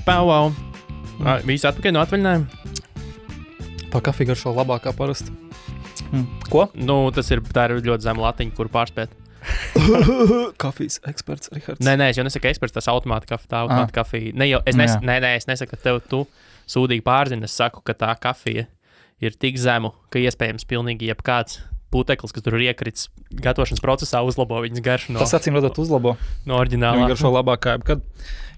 Wow. Visi atpakaļ no atvaļinājuma? Tā kafija garšo labākā parasti. Ko? Nu, tā ir ļoti zema latiņa, kur pārspēt. Kafijas eksperts, Rihards. Nē, es jau nesaku eksperts, tas automāta kafija. Es nesaku, ka tu sūdīgi pārzini, es saku, ka tā kafija ir tik zemu, ka iespējams pilnīgi jebkāds puteklis, kas tur ir iekrits gatavošanas procesā, uzlabo viņas garšu. Tas acīm redzot uzlabo. No oriģinālā. Viņa garšo labākā, kad,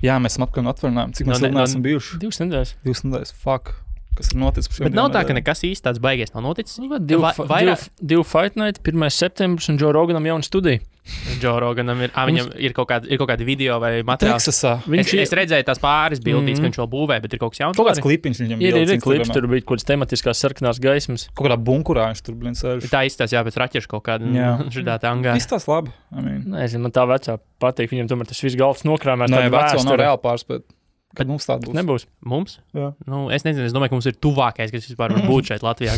jā, mēs esam atpakaļ no atvaļinājuma. Cik mēs neesam bijuši? 2 nedēļas. 2 nedēļas, fuck. Kas ir noticis? Bet nav tā, ka nekas īsti tāds baigies nav noticis. Divu Fight Night, 1. septembris, un Joe Roganam jauna studija. Joe Roganam viņam ir kaut kādi video vai materiāli. Teksasā. Es redzēju tās pāris bildītes, ka viņš vēl būvē, bet ir kaut kas jauns. Kaut kāds klipiņš viņam ir klips, tur bija kaut kāds tematiskās sarkanās gaismas. Kaut kādā bunkurā viņš tur sēž. Tā izstās, jā, pēc raķešu kaut kāda šitā angā. Izstās labi. Nezinu, man tā vecā patīk, viņam tomēr tas viss galds nokrāmēs. Nē, veco nav reāli pārspēt. Kad mums tāda būs? Nebūs. Mums? Jā. Nu, es nezinu, es domāju, ka mums ir tuvākais, kas vispār var būt šeit Latvijā.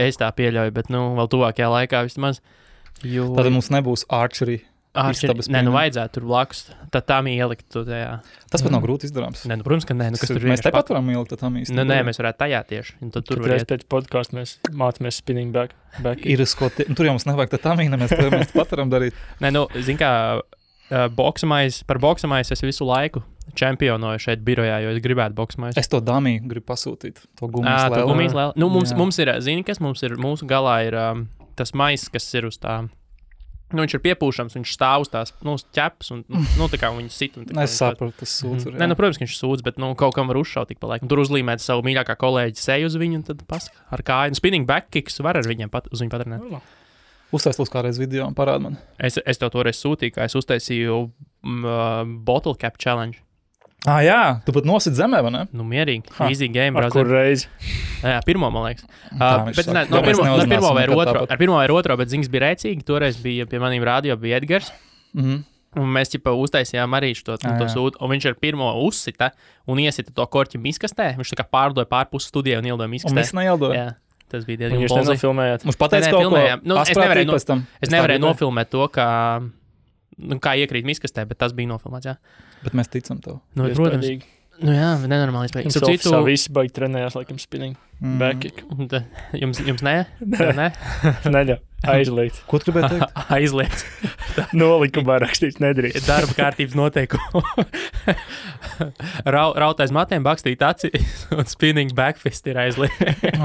Es tā pieļauju, bet vēl tuvākajā laikā vismaz. Tad mums nebūs archery. Nē, vajadzētu tur blakus. Tad tam ielikt to tajā. Tas pat nav grūti izdarāms. Nē, protams, ka nē. Mēs tepat varam ielikt tam īsti. Nē, mēs varētu tajā tieši. Tur reiz pēc podcastu mēs mācāmies spinning back. Ir tur jau mums nevajag tam īna, mēs pat varam darīt. Nē, zin kā, par boksamais es visu laiku čempionoju šeit birojā, jo es gribētu boksamais. Es to damiju gribu pasūtīt. To gumijas lēlu. Nu, mums ir, zini, kas mums ir, mūsu galā ir tas maiss, kas ir uz tā. Nu, viņš ir piepūšams, viņš stāv uz tās, ķeps, un, tā kā viņi sit. Es saprotu, tas sūdz. Nē, protams, ka viņš sūdz, bet, kaut kam var uzšaut tik pa laikam. Tur uzlīmēt savu mīļākā kolēģi seju uz viņu, un tad ar kāju. Spinning back kicks var ar viņiem uz viņu patrenēt. Uztais lūs kādreiz video un parād man. Es tev toreiz sūtīju, kā es uztaisīju bottle cap challenge. Jā, tu pat nosit zemē, vai ne? Nu, mierīgi. Easy game, brother. Kur reizi? Jā, pirmo, man liekas. Bet pirmo vai otro, bet ziņas bija rēcīgi. Toreiz bija pie maniem radio, bija Edgars. Un mēs uztaisījām arī to sūtu. Un viņš ar pirmo uzsita un iesita to korķi miskastē. Viņš tā kā pārdoja pārpus studijā un ieldoja miskastē. Un mēs neieldojam. Jā. Tas bija diezgan Jūs nenofilmējāt. Mums pateica kaut ko. Es nevarēju nofilmēt to, kā iekrīt miskastē, bet tas bija nofilmēts, jā. Bet mēs ticam tev. Nu, protams. Nu jā, nenormāli iespējams. Citu visi baigi trenējās, laikam, spinning. Back kick. Jums ne? Neļa. Aizliegts. Ko tu gribēji teikt? Aizliegts. Nolikumā rakstīts nedrīkst. Darba kārtības noteikumu. Rautais matiem bakstīt aci un spinning backfist ir aizliegts.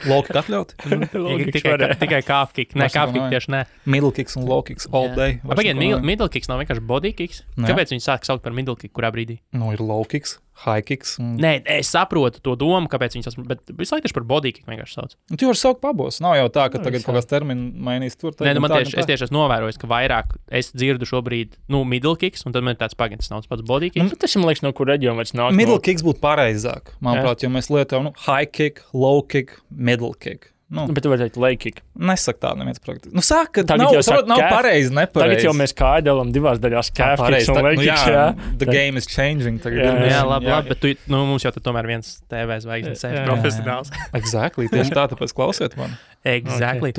Low kick atļaut? Tikai calf kick. Nē, calf kick tieši nē. Middle kicks un low kicks all day. Pagaid, middle kicks nav vienkārši body kicks? Kāpēc viņi sāk saukt par middle kick kurā brīdī? Nu, ir low kicks, high kicks. Nē, es saprotu to domu, kāpēc viņi sauc, bet visu laiku tieši par body kick vienkārši sauc. Tu vari saukt pabos. Nav jau tā, ka tagad kaut kāds termini mainīs tur. Nē, man tieši, es tieši esmu novērojis, ka vairāk es dzirdu šobrīd, middle kicks, un tad man ir tāds pagaidis nav pats body kicks. Tas, man liekas, no kur reģiona vairs nāk. Middle kicks būtu pareizāk, manuprāt, jo mēs lietojam high kick, low kick, middle kick. Bet tu vari teikt leg kick. Nesak tā neviens praktiski. Saka, ka nav pareizi, nepareizi. Tagad jau mēs kājdēlam divās daļās calf kicks un leg kicks, jā. The game is changing. Jā, labi, bet mums jau tomēr viens TV zvaigznes profesionāls. Exactly, tieši tā, tāpēc klausiet man. Exactly.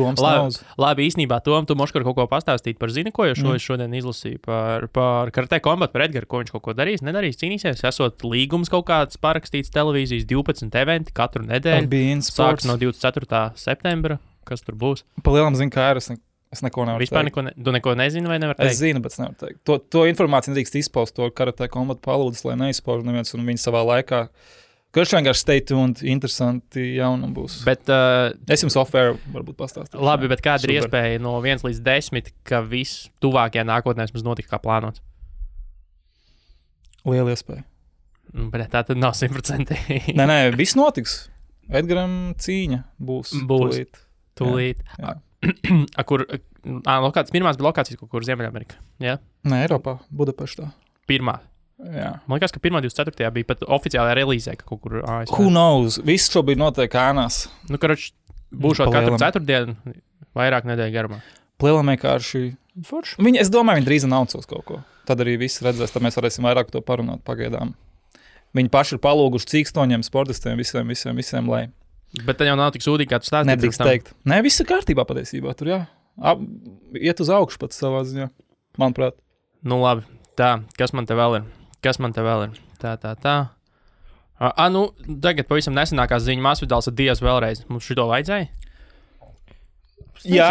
Labi, īstenībā, Tom, tu moškar kaut ko pastāstīt par zini, ko jo šodien izlasīju par Karate Combat, par Edgaru, ko viņš kaut ko darīs, nedarīs, cīnīsies. Esot līgums kaut kāds parakstīts televīzijas 12 eventi katru nedēļu. Sāks no 24. septembra. Kas tur būs? Pa lielam zinu, kā ir. Es neko nevaru teikt. Vispār tu neko nezini vai nevar teikt? Es zinu, bet es nevaru teikt. To informāciju nedrīkst izpaust, to Karate Combat palūdis, lai neizpauž neviens un viņi savā laikā. Kurš vienkārši stay tuned, interesanti jaunumi būs. Bet, es jums off-air varbūt pastāstīšu. Labi, bet kāda ir iespēja no 1 līdz 10, ka viss tuvākajā nākotnē mums notika kā plānots? Liela iespēja. Bet tā tad nav 100%. Nē, viss notiks. Edgaram cīņa būs. Tūlīt. Pirmās bija lokācijas kaut kur Ziemeļamerikā. Ja? Nē, Eiropā, Budapeštā. Pirmā. Jā. Man liekas, ka 1.24. bija pat oficiālajā relīzē, ka kaut kur ASV. Who knows? Viss šobrīd notiek ēnās. Būšot katru ceturtdienu, vairāk nedēļu garumā. Plēlam vienkārši. Es domāju, viņi drīz announcos kaut ko. Tad arī viss redzēs, tad mēs varēsim vairāk to parunāt pagaidām. Viņi paši ir palūguši cīkstoņiem, sportistiem, visiem, lai. Bet tad jau nav tik sūdīgi, kā tu stāstīji. Nedrīkst teikt. Nē, viss ir kārtībā patiesībā. Tur iet uz augšu pats savā ziņā, manuprāt. Nu labi, tā, kas man te vēl ir? Kas man te vēl ir? Tā. Nu, tagad pavisam nesenākās ziņa Masvidals ar Diaz vēlreiz. Mums šito vajadzēja? Jā,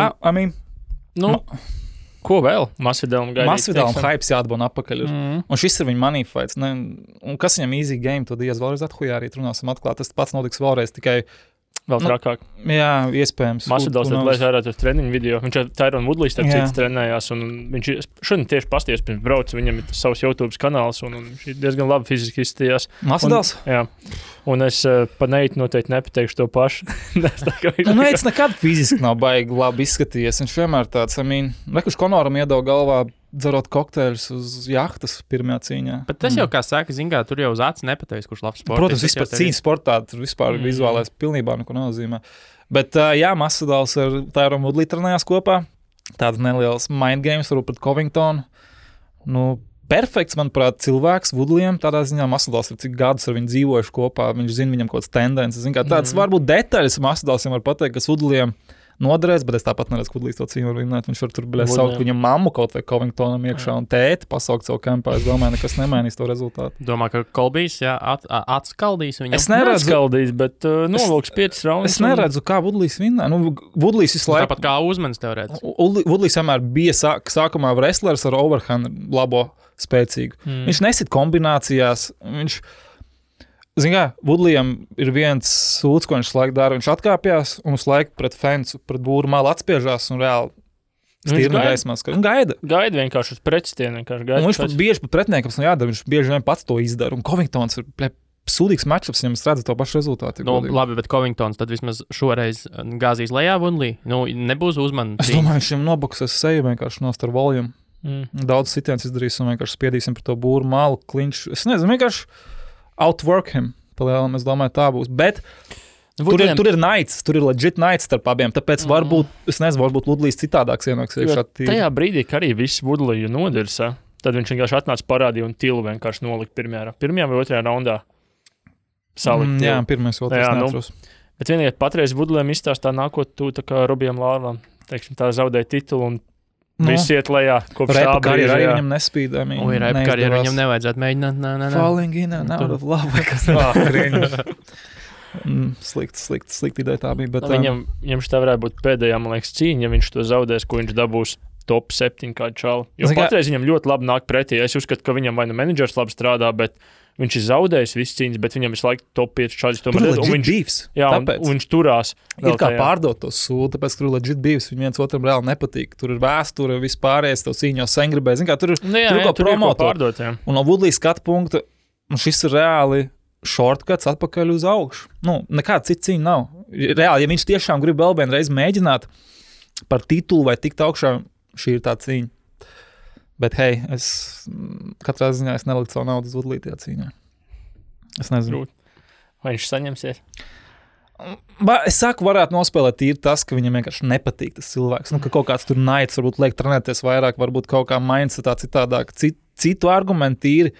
ko vēl? Masvidalam gaidīt. Masvidalam hypes jāatbona apakaļ. Un šis ir viņa money fights. Ne? Un kas viņam easy game, to Diaz vēlreiz athujā arī runāsim atklāt. Tas pats notiks vēlreiz tikai... Vēl trakāk. Jā, iespējams. Masvidals lēs ārā uz treniņu video. Viņš ar Tyrone Woodley starp citu trenējās. Un viņš šodien tieši pasties pirms brauc. Viņam ir savs YouTube kanāls. Un viņš ir diezgan labi fiziski izstījās. Masvidals? Jā. Un es pa Neitu noteikti nepateikšu to pašu. Neits nekad fiziski nav baigi labi izskatījies. Viņš vienmēr tāds, kurš Konoram iedod galvā dzerot kokteļus uz jahtas pirmajā cīņā. Bet tas jau, kā saka, zingā, tur jau uz acis nepateiks, kurš labs sports. Protams, vispār cīņas sportā, tur vispār vizuālais pilnībā neko nozīmē. Bet jā, Masvidals ar Tyrone Woodley trenējās kopā. Tāds neliels mind games, varbūt pret Covingtonu. Perfekts, manuprāt, cilvēks Woodleyam. Tādā ziņā Masvidals ir cik gadus ar viņu dzīvojuši kopā. Viņš zina viņam kaut kāds tendences. Tāds varbūt detaļas Masvidalsam var pateikt, kas Woodleyam noderēs, bet es tāpat neredzu, kur līdz to cīņu var vinēt. Viņš var tur saukt viņam mammu kaut vai Covingtonam iekšā un tēti pasaukt savu kampā. Es domāju, nekas nemainīs to rezultātu. Domā, ka Kolbijs, atskaldīs viņam? Es neredzu. Atskaldīs, bet novilks 5 raundus. Es neredzu, kā Woodleys vinnē. Woodleys visu laiku... Tāpat kā Uzmanis teorētiski. Woodleys vienmēr bija sākumā wrestlers ar overhand labo spēcīgu. Viņš nesit kombinācijās. Woodleyam ir viens sūds, ko viņš laiku dara. Viņš atkāpjās un uz laiku pret fensu, pret būru malu atspiežās un reāli stīrna gaismās. Un gaida. Gaida vienkārši uz pretstienu. Viņš pat bieži pat pretiniekam jādara. Viņš bieži vien pats to izdara. Un Covingtons ir sūdīgs matchups, viņam redz to pašu rezultātu. Labi, bet Covingtons tad vismaz šoreiz gāzīs lejā Woodley. Nebūs Uzmanu. Es domāju, viņš viņam nobuksēs seju vienkārši nost ar volumu. Daudz sitiens izdarīs un vienkārši spiedīsim par to būru malu, klinču. Es nezinu, vienkārši outwork him, palielam, es domāju, tā būs. Bet tur ir naids, tur ir legit naids starp abiem, tāpēc varbūt, es nezinu, varbūt Woodleys citādāks ienāks. Tajā brīdī, ka arī viss Woodleyu nodirsa, tad viņš vienkārši atnāca parādīja un tilu vienkārši nolikt pirmajā vai otrajā raundā. Salikt. Jā, pirmais, otrais neatros. Bet vienīgi patreiz Woodleyam izstāstā nākot tu tā kā Robijam Lārlam, teiksim, tā zaudēja titulu un viss iet lejā, kopš tā brīža. Arī viņam nespīd. Repa karjeru viņam nevajadzētu mēģināt. Falling in and out of love. Slikta ideja tā bija. Bet, viņam šitā varētu būt pēdējā, man liekas, cīņa, ja viņš to zaudēs, ko viņš dabūs top 7 kādu čalu. Jo patreiz viņam ļoti labi nāk pretī. Es uzskatu, ka viņam vai menedžers labi strādā, bet viņš ir zaudējis visas cīņas, bet viņam visu laiku top 5 čaļus. Tur ir legit beefs. Jā, un viņš turās. Ir kā pārdot to sūdu, tāpēc, ka tur ir legit beefs. Viņi viens otram reāli nepatīk. Tur ir vēsture, vispārējais, to cīņu jau sen gribēja. Zin kā, tur ir ko promotot. Un no Woodleys skatu punkta, šis ir reāli shortcuts atpakaļ uz augšu. Nekāda cita cīņa nav. Reāli, ja viņš tiešām grib vēl vienreiz mēģināt par titulu vai tikt augšā, šī ir tā cīņa. Bet, hei, katrā ziņā es neliktu savu naudu uz Woodley tajā cīņā. Es nezinu. Vai viņš saņemsies? Es saku, varētu nospēlēt tīri tas, ka viņam vienkārši nepatīk tas cilvēks. Ka kaut kāds tur naids, varbūt liek trenēties vairāk, varbūt kaut kā mindsetā citādāk. Citu argumentu tīri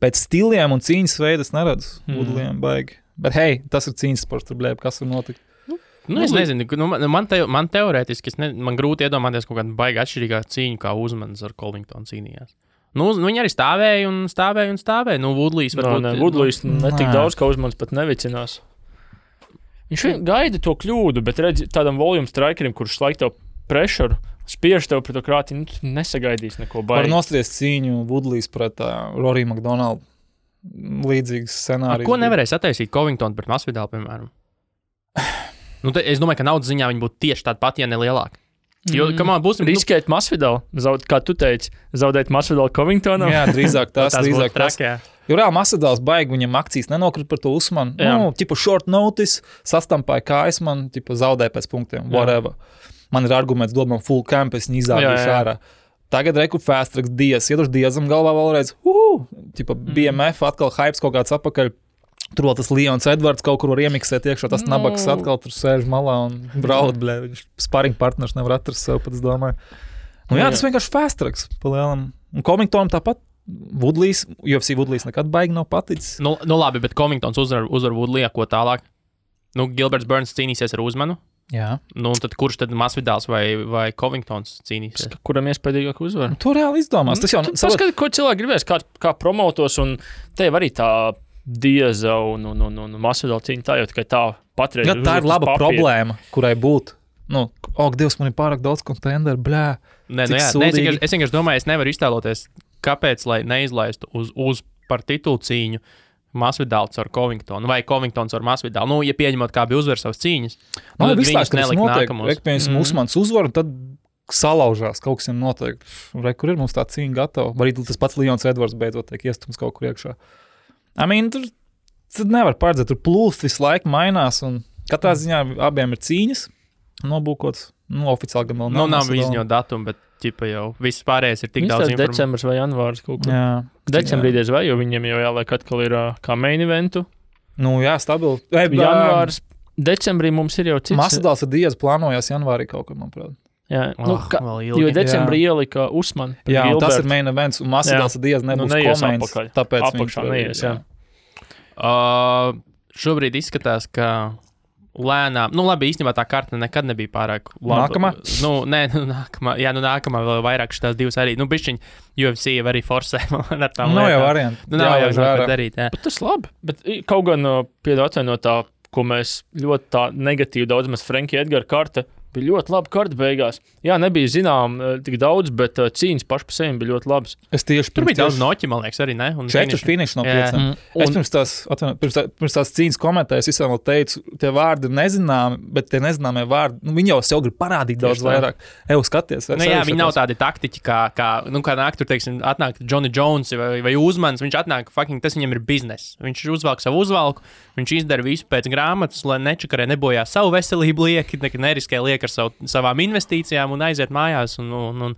pēc stiliem un cīņas veidas neredzu Woodleyam baigi. Bet, hei, tas ir cīņas sports, tur blēb, kas var notikt. Es nezinu, man teorētiski, man grūti iedomāties kaut kādu baigi atšķirīgā cīņu, kā Uzmanis ar Covingtonu cīnījās. Viņi arī stāvēja un stāvēja. Woodleys varbūt... Woodleys netik daudz, kā Uzmanis pat nevicinās. Viņš gaida to kļūdu, bet redz tādam volume strikerim, kurš laik tev pressure, spiež tev pret to krāti, nesagaidīs neko baigi. Var nostriest cīņu Woodleys pret Rory McDonald līdzīgs scenārijs. Ko nevarēs attaisīt Covingtonu pret Masvidalu, piemēram? Es domāju, ka naudas ziņā viņi būtu tieši tādi pat, ja ne lielāki. Jo, būs riskēt Masvidalu, kā tu teici, zaudēt Masvidalu Covingtonam. Jā, drīzāk tas. Jo reāli Masvidals baigi, viņam akcijas nenokrita par to Usmanu. Tipu short notice, sastampāja kājas man, zaudēja pēc punktiem, whatever. Man ir arguments, dod man full camp, es viņu izādīšu ārā. Tagad reku fast tracks Diaz, ieduši Diazam galvā vēlreiz, BMF atkal hypes kaut kāds apakaļ. Tur vēl tas Leons Edvards kaut kur var iemiksēt iekšā, tas nabaks atkal tur sēž malā un braud, viņš sparring partners nevar atrast sev, pat es domāju. Tas vienkārši fast tracks, palielam. Un Covingtonam tāpat Woodleys, UFC Woodleys nekad baigi nav paticis. Labi, bet Covingtons uzvar Woodley, ko tālāk? Gilberts Burns cīnīsies ar Uzmanu. Jā. Nu, tad kurš tad Masvidāls vai Covingtons cīnīsies? Kuram iespējīgāk uzvar? To reāli izdomās. Tas jau Paskatīt, ko cilvēki gribēs, kā promotos, un tev arī tā Dieza un Masvidāla cīņa tā jau tikai tā patreiz. Tā ir laba problēma, kurai būt. Dievs, man ir pārāk daudz kontenderu, blē. Es vienkārši domāju, es nevaru iztēloties, kāpēc, lai neizlaistu uz par titulu cīņu Masvidāls ar Covingtonu vai Covingtons ar Masvidālu. Ja pieņemot, kā bija uzvar savas cīņas, tad viņus nelikt nākamos. Usmans uzvar, un tad salaužās, kaut kas ir noteikti. Kur ir mums tā cīņa gatava? Arī tas pats Leons Edvards beidzot tiek iestums kaut kur iekšā. Tur nevar paredzēt, tur plūst visu laiku mainās, un katrā ziņā abiem ir cīņas nobūkots. Oficiāli gan vēl nav. Nav izņot datumu, bet ķipa jau viss pārējais ir tik daudz informācijas. Decembris vai janvārs kaut kur. Decembrī diez vai, jo viņiem jau jāliek atkal ir kā main eventu. Stabili. Janvārs, decembrī mums ir jau cits. Masvidāls ar Diez plānojās janvārī kaut kur, manuprāt. Jā, jo decembrī ielika Usman. Jā, tas ir main events, un Masvidāls ar Diez nebūs koments. Tāpēc apakšā neies, jā. Šobrīd izskatās, ka lēnām, labi, īstenībā tā karta nekad nebija pārāk laba. Nākamā? Nākamā. Jā, nākamā vēl vairāk šitās divas arī. Bišķiņ, UFC arī forsē ar tām lietām. Jau varianti. Nav jau ko darīt, jā. Bet tas labi. Bet kaut gan atvainot tā, ko mēs ļoti tā negatīvi daudz mēs Frankie Edgara karta, bija ļoti laba karta beigās. Jā, nebija zinām tik daudz, bet cīņas paši pa sevi bija ļoti labas. Tur bija daudz noķi, man liekas, arī, ne? 4 finiši no 5. Es pirms tās cīņas komentēju, es visam vēl teicu, tie vārdi nezināmi, bet tie nezināmie vārdi, viņi jau sev grib parādīt daudz vairāk. Skaties. Jā, viņi nav tādi taktiķi, kā nāk tur, teiksim, atnāk Johnny Jones vai Uzmans, viņš atnāk, tas viņam ir biznes. Viņš uzvelk savu uzvalku, viņš izdara visu pēc grāmatas, lai nečakarē nebojā savu veselību lieki, neriskē lieki ar savām investīcijām un aiziet mājās un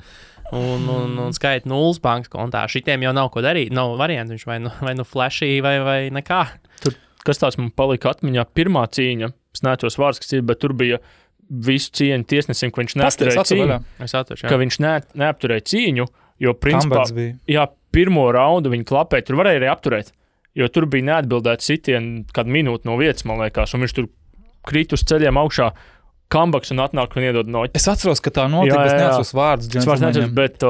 skaita nulles bankas kontā. Šitiem jau nav ko darīt, nav variantu, viņš vai nu flashy vai nekā. Tur, kas tāds man palika atmiņā, pirmā cīņa, es neatceros vārds, kas ir, bet tur bija visu cieņu tiesnesim, ka viņš neapturēja cīņu. Ka viņš neapturēja cīņu, jo principā, pirmo raundu viņi klapēja, tur varēja arī apturēt, jo tur bija neatbildēt sitienu kādu minūti no vietas, man liekas, un viņš tur krīt uz ceļiem augšā, kambaks un atnāk un iedod noķi. Es atceros, ka tā notika, bet es neatceros vārdus. Bet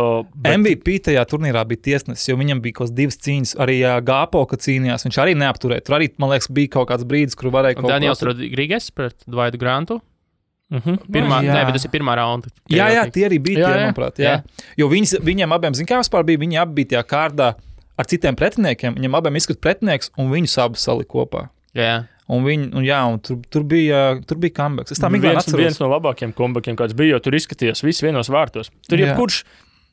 MVP tajā turnīrā bija tiesnesis, jo viņam bija kaut 2 cīņas. Arī Gāpo, kad cīnījās, viņš arī neapturēja. Tur arī, man liekas, bija kaut kāds brīdis, kur varēja kaut ko... Daniels Rodriguez pret Dvaidu Grantu. Bet tas ir pirmā raunda. Jā, tie arī bija tie, manuprāt. Jā. Jo viņiem abiem, kā vispār bija, viņi abi bija tajā kārdā ar citiem pretiniekiem. Viņam abiem izskat pretinieks un viņus abus salika kopā. Jā. Un tur bija comebacks. Es tā viens no labākiem comebakiem, kāds bija, jo tur izskatījās viss vienos vārtos. Tur jebkurš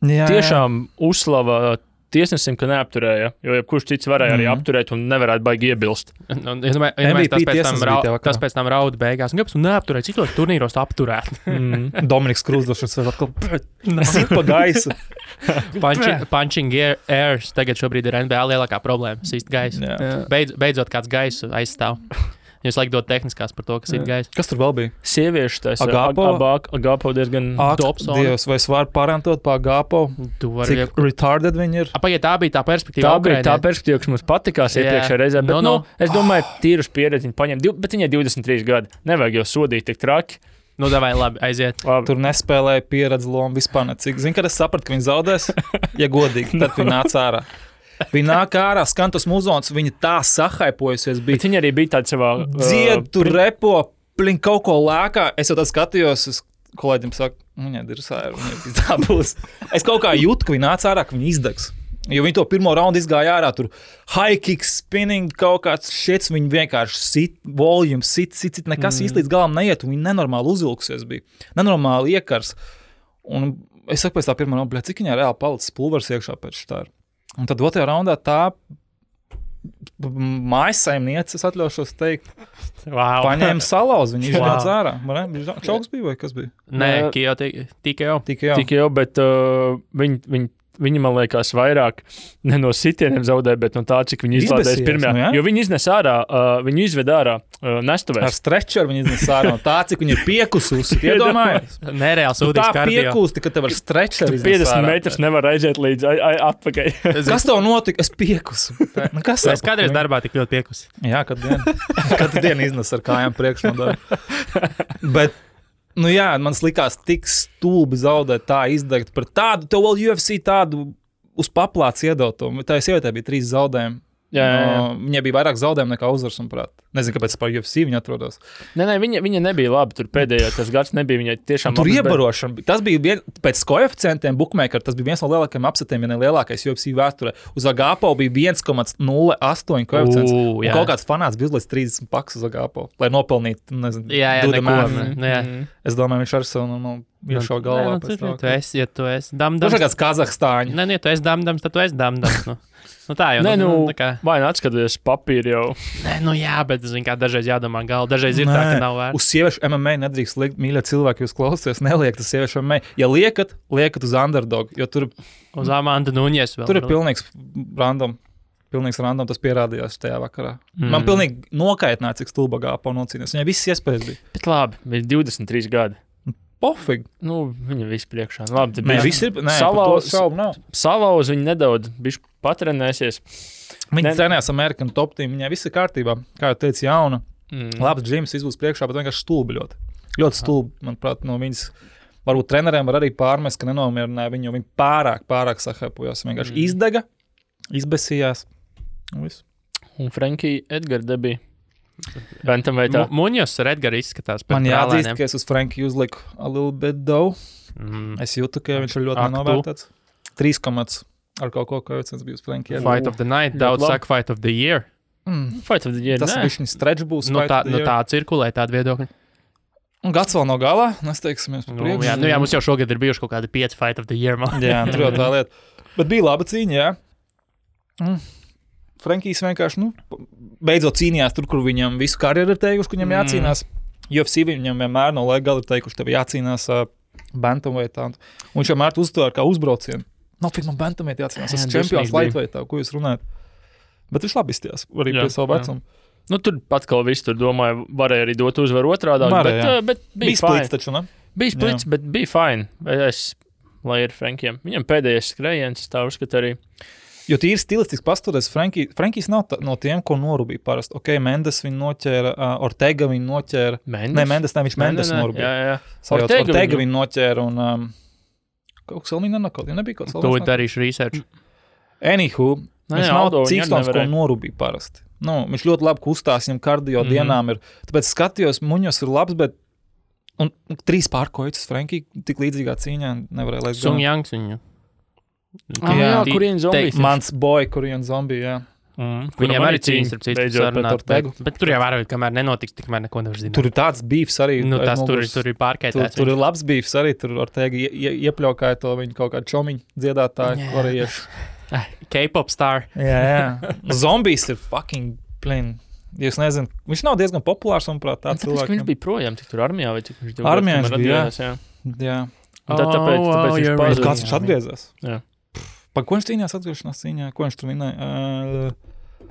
tiešām uzslava tiesnesim, ka neapturēja, jo jebkurš cits varēja arī apturēt un nevarētu baigi iebilst. Tas pēc tam rauda beigās. Un kāpēc tu neapturēji, citos turnīros apturēt? Dominiks Krūsdošs vēl atkal sit pa gaisu. Punching airs tagad šobrīd ir NBA lielākā problēma. Sist gaisu. Beidzot kāds gaisu aizstāv. Jūs laikam dod tehniskās par to, kas ir gaisa. Kas tur vēl bija? Sieviešu tas Agapo diezgan tops. Dievs, vai es varu parantot pa Agapo? Cik retarded viņi ir? Pagaid, tā bija tā perspektīva. Tā bija tā perspektīva, kas mums patikās iepriekšējā reizē. Bet, es domāju, tīrus pieredzi viņi paņem, bet viņai 23 gadi. Nevajag jau sodīt tik traki. Davai, labi, aiziet. Labi. Tur nespēlēja pieredzi lomu vispār necik. Zini, kad es sapratu, ka viņi zaudēs, ja godīgi, tad viņi nāca ārā. Viņa nāk ārā, skan tas muzons, viņa tā sahaipojusies bija. Bet viņa arī bija tāda savā... Dzied, tur repo, kaut ko lēkā. Es jau tad skatījos, es kolēģim saku, viņai dirsāja, viņai tā būs. Es kaut kā jūtu, ka viņa nāca ārā, ka viņa izdegs. Jo viņi to pirmo raundu izgāja ārā, tur high kick, spinning, kaut kāds šits, viņi vienkārši sit, volume, sit, nekas īsti līdz galam neiet, un viņi nenormāli uzvilkusies bija. Nenormāli iekars. Un es saku pēc tā pirmā raundā, cik viņai reāli palicis pulvers iekšā pēc šitā. Un tad otrajā raundā tā mājassaimniece, es atļaušos teikt, paņēma salauz, viņa iznāca ārā. Čauks bija vai kas bija? Nē, TKO, bet viņi, man liekas, vairāk ne no sitieniem zaudēja, bet no tā, cik viņi izlādēs pirmajā. Jo viņi iznes ārā, viņi izved ārā nestuvēs. Ar stretcheru viņi iznes ārā, no tā, cik viņi ir piekususi. Iedomājies? Nereāli sūdīgs kardio. Tā piekusti, ka tev ar stretcheru iznes ārā. 50 metrus nevar aiziet līdz atpakaļ. Kas tev notika? Es piekusu. Es kādreiz darbā tik ļoti piekusi. Jā, katru dienu iznes ar kājām priekšnodaļu. Bet Nu jā, man likās tik stulbi zaudēt, tā izdegt par tādu, tev vēl UFC tādu uz paplāts iedotumu. Tā sievietē bija 3 zaudējumi. Jā. Viņai bija vairāk zaudējumu nekā uzvaras, manuprāt. Nezinu, kāpēc par UFC viņa atrodas. Nē, viņa nebija labi. Tur pēdējā tas gads nebija viņai tiešām tur iebarošana. Tas bija pēc koeficientiem bookmaker, tas bija viens no lielākajiem upsetiem, ja ne lielākais UFC vēsturē. Uz Agapo bija 1,08 koeficients. Kaut kāds fanāts bija uzlicis 30 pakas uz Agapo, lai nopelnītu, nezinu, Es domāju, viņš ar savu iešau galvā. Tu esi damdams. Tas ir kāds Kazahstāņu. Nē, tu esi damdams, tad tu esi damdams. Nu tā jau vai atskaties papīri jau. Nē, jā, bet kā dažreiz jādomā galva. Dažreiz ir tā, ka nav vērts. Uz sieviešu MMA nedrīkst liekt, mīļie cilvēki, jūs klausāties, neliekt uz sieviešu MMA. Ja liekat uz underdog, jo tur uz Amanda Nuņes vēl. Tur ir pilnīgs random. Pilnīgs random, tas pierādījās tajā vakarā. Man pilnīgi nokaitināja, cik stulba Agapo nocīnījās. Viņai visas iespējas bija. Bet labi, bija 23 gadi. Pofīgi. Viņa viss priekšā. Labi, salauz viņa nedaudz, bišķi patrenēsies. Viņa trenējās American Top Team, viņai viss ir kārtībā, kā jau teicu, jauna. Labs džims izbūs priekšā, bet vienkārši stulbi ļoti. Ļoti stulbi, manuprāt, no viņas. Varbūt treneriem var arī pārmest, ka nenomierināja viņu, jo viņi pārāk sahēpojās. Vienkārši izdega, izbesījās. Un Frankie Edgar debija. Muņos ar Edgaru izskatās. Man jāatzīst, ka es uz Franki uzliku a little bit dough. Es jūtu, ka viņš ir ļoti nenovērtēts. 3 ar kaut ko koeficients bija uz Franki. Fight of the night, daudz saka fight of the year. Fight of the year, tas viņš stretch būs. Tā cirkulē tāda viedokļa. Un gads vēl nav galā, mēs teiksimies par priekšu. Jā, mums jau šogad ir bijuši kaut kādi 5 fight of the year. Jā, tur jau tā lieta. Bet bija laba cīņa, jā. Frankijs vienkārši, beidzot cīnījās tur, kur viņam visu karjeru ir teikuši, ka viņam jācīnās. UFC viņam vienmēr no laika gala ir teikuši, tev jācīnās bantamweightā. Un viņš vienmēr uztvēra kā uzbraucienu. Nav man bantamweight jācīnās, es esmu čempions lightweightā, ko jūs runājat. Bet viņš labi izstījās, arī pie savu vecumu. Tur atkal viss tur domāju, varēja arī dot uzvaru otrādā, bet bija splits taču, ne? Bija splits, bet bija fine. Lai ir Frankiem. Viņam pēdējais skrējiens, tā uzskata arī. Jo tīri stilistiski pastoties, Frankijs nav no tiem, ko norubīja parasti. Ok, Mendes viņu noķēra, Ortega viņu noķēra. Mendes, viņš Mendes norubīja. Jā. Ortega viņu noķēra un kaut kas vēl viņa nebija kaut kas vēl. To darīšu research. Anywho, viņš nav cīkstons, ko norubīja parasti. Viņš ļoti labi kustās, viņam kardio dienām ir. Tāpēc skatījos, Muņos ir labs, bet un 3 pārkojas Frankī tik līdzīgā cīņā nevarēja laist. Sung Jangs viņu. Korean Zombie. Mans boy, Korean Zombie, jā. Viņam arī cīņas ar citu sarunāt. Bet tur jau vairāk, kamēr nenotiks, tikmēr neko nevar zināt. Tur ir tāds beefs arī. Tur ir pārkaitēts. Tur ir labs beefs arī. Tur Ortega iepļaukāja to viņu kaut kādu čomiņu dziedātāju korejiešu. K-pop star. Jā. Zombies ir fucking plain. Jūs nezināt, viņš nav diezgan populārs, manuprāt, tāds cilvēks. Viņš bija projām, tik tur armijā vai cik viņš armijā bija, jā. Tāpēc viņš pazuda. Kāds viņš atgriezās? Jā. Par ko viņš cīnījās atgriešanās cīņā? Ko viņš tur vinēja?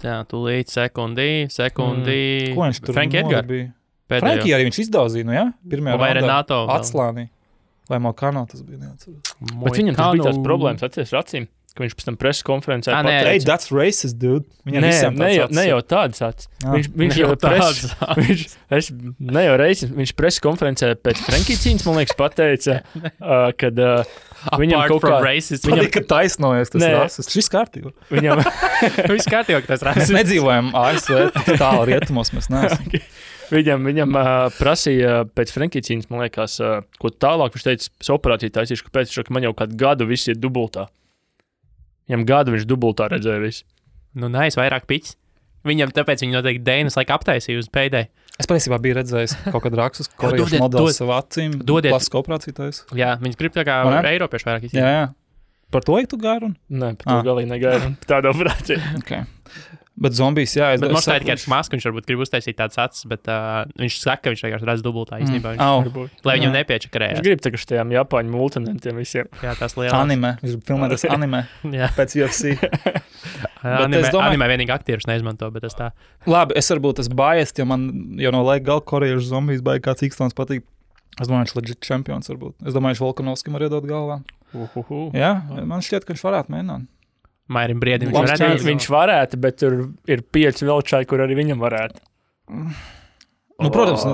Jā, tūlīt sekundī. Ko viņš tur Frankie Edgar bija? Frankie arī viņš izdauzīja, jā? Pirmajā vai Renato atslānī. Vai Malkano tas bija neatceros. Bet viņam tas bija tās problēmas atceries ar acīm, ka viņš pēc tam preses konferencē pateica. Hey, that's racist, dude. Ne jau tāds acis. Viņš jau preses. Ne jau reizes. Viņš preses konferencē pēc Frankie cīņas, man liekas, pateica, kad viņam kaut kā racist. Viņam ka taisnojas tas rasists. Šis kārtībā. Viņam viss kārtībā, ka tas rasists. Mēs nedzīvojam ASV tālu rietumos, mēs neesam. Viņam prasīja pēc Frankie cīņas, man liekas, ko tālāk viņš teica, es operāciju taisīšu, kāpēc viņš man jau kādu gadu viss ir dubultā. Viņam gadu viņš dubultā redzēja visu. Vairāk piķis. Viņam tāpēc viņi noteikti Dēnas laika aptaisīja uz pēdēju. Es patiesībā biju redzējis kaut kādu rakstus, korejiešu modeli savu acīm. Plastisku operāciju taisa. Jā, viņas grib tā kā Eiropieši vairāk izsīt. Jā. Par to tu gāri? Nē, par to galīgi negāri. Tāda operācija. Okay. Bet zombijs, jā. Bet mums tā ir tikai masku, viņš varbūt grib uztaisīt tāds acis, bet viņš saka, ka viņš vienkārši redz dubultā īstenībā. Lai viņam nepiečakarējās. Viņš grib tā, ka štajām Japāņu multinentiem visiem. Jā, tās lielās. Anime. Viņš filmē tas anime pēc UFC. Anime vienīgi aktierus neizmanto, bet tas tā. Labi, es varbūt tas biased, jo man jau no laika gala korejiešu zombijs baigi kāds ikstons patīk. Es domāju, viņš legit čempions varbūt. Es domāju, viņš Volkanovskim var iedot galvā. Jā, man šķiet, ka viņš varētu mēģināt. Mairim Briedim viņš varētu, bet tur ir 5 vēl čai, kur arī viņam varētu. Nu, protams,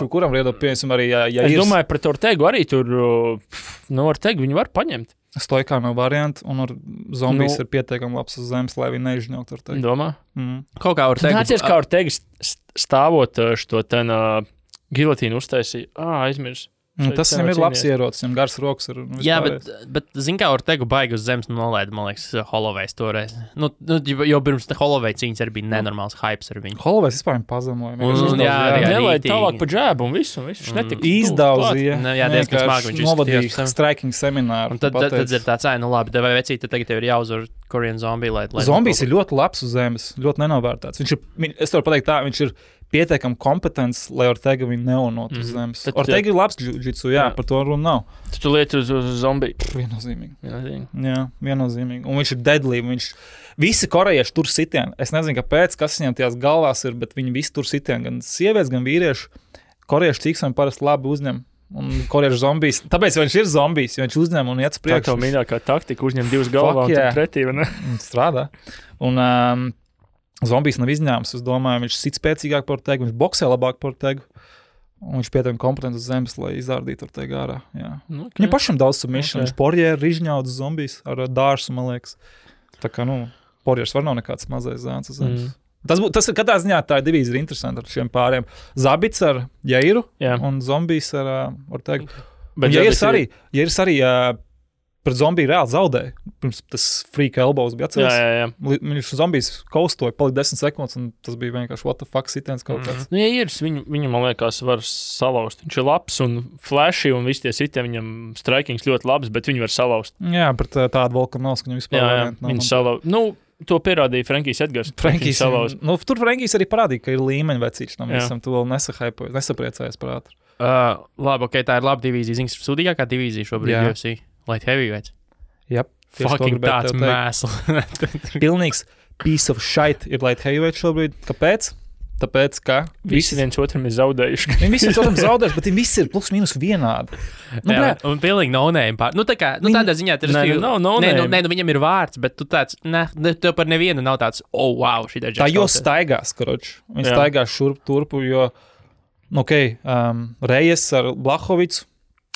kuram riedo, piemēram, arī, ja es domāju, pret Ortegu arī tur, Ortegu viņi var paņemt. Stoikā nav varianti, un ar zombijas ir pietiekami labs uz zemes, lai viņi neizžņaukt Ortegu. Domā? Kaut kā Ortegu. Nācies, kā Ortegu stāvot šo ten gilotīnu uztaisīja. Aizmirs. Tas viņam ir labs ierocis, viņam gars rokas ir. Jā, bet zin kā Ortegu baigi uz zemes nolaida, man liekas, Holloway's toreiz. Jo pirms Holloway cīņas arī bija nenormāls hypes ar viņu. Holloway's vispār pazamoja. Nelaida tālāk pa džēbu un visu. Izdauzīja. Jā, diezgan smagi viņš novadīja striking semināru. Un tad ir tāds, labi, tev vai vecīt, tad tagad tev ir jāuzvar Korean zombie. Zombijs ir ļoti labs uz zemes, ļoti nenovērtāts. Es varu pateikt tā, viņš ir pietiekami kompetents, lai Ortega viņu neunot uz zemes. Ortega ir labs jiu-jitsu, par to runa nav. Tu lieti uz zombiju. Viennozīmīgi. Jā, viennozīmīgi. Un viņš ir deadly. Visi korejieši tur sitieni. Es nezinu, kāpēc, kas viņam tajās galvās ir, bet viņi visi tur sitieni. Gan sievietes, gan vīrieši. Korejieši cīksami parasti labi uzņem. Un korejiešu zombijs. Tāpēc viņš ir zombijs, jo viņš uzņem un iet uz priekšu. Tā tev mīļākā taktika uzņem divas galvā un tad pretī, vai ne? Strādā. Un zombijs nav izņēmums. Es domāju, viņš sit spēcīgāk par Ortegu, viņš boksē labāk par Ortegu. Un viņš pietiekami kompetents uz zemes, lai izdārdītu Ortegu ārā. Okay. Viņam pašam daudz submission. Viņš porjēri izņaudas zombijs ar dārsu, man liekas. Tā kā, porjērs var nav nekāds mazais zēns uz zemes. Tas ir katrā ziņā tā divīzija ir interesanti ar šiem pāriem. Zabits ar Jairu un zombijs ar Ortegu. Bet Jairs arī pret zombiju reāli zaudēja. Pirms tas freak elbows bija atceries. Jā. Viņš zombijs kaustoja, palika 10 sekundes, un tas bija vienkārši what the fuck sitiens kaut kāds. Jairs, viņu, man liekas, var salauzt. Viņš ir labs un flashy, un visi tie sitieni viņam strikings ļoti labs, bet viņi var salauzt. Jā, pret tādu Volkanovs, ka viņam vispār viņi salauzt. To pierādīja Frankijs Edgars. Tur Frankijs arī parādīja, ka ir līmeņa vecīši. Visam tu vēl nesapriecājies par ātru. Labi, tā ir laba divīzija. Zini, sūdīgākā divīzija šobrīd UFC. Light heavyweights. Yep. Fucking tāds mēsls. Pilnīgs piece of shit ir light heavyweights šobrīd. Kāpēc? Tāpēc, ka visi viens otram ir zaudējuši. Viņi visi viens otram zaudējuši, bet viņi visi ir plus mīnus vienādi. Un pilnīgi no-name pār. Tādā ziņā viņam ir vārds, bet tu tāds, tev par nevienu nav tāds, wow, šī tā. Tā jo staigās, karoči. Viņi staigās šurp turpu, jo, Rejes ar Blahovicu.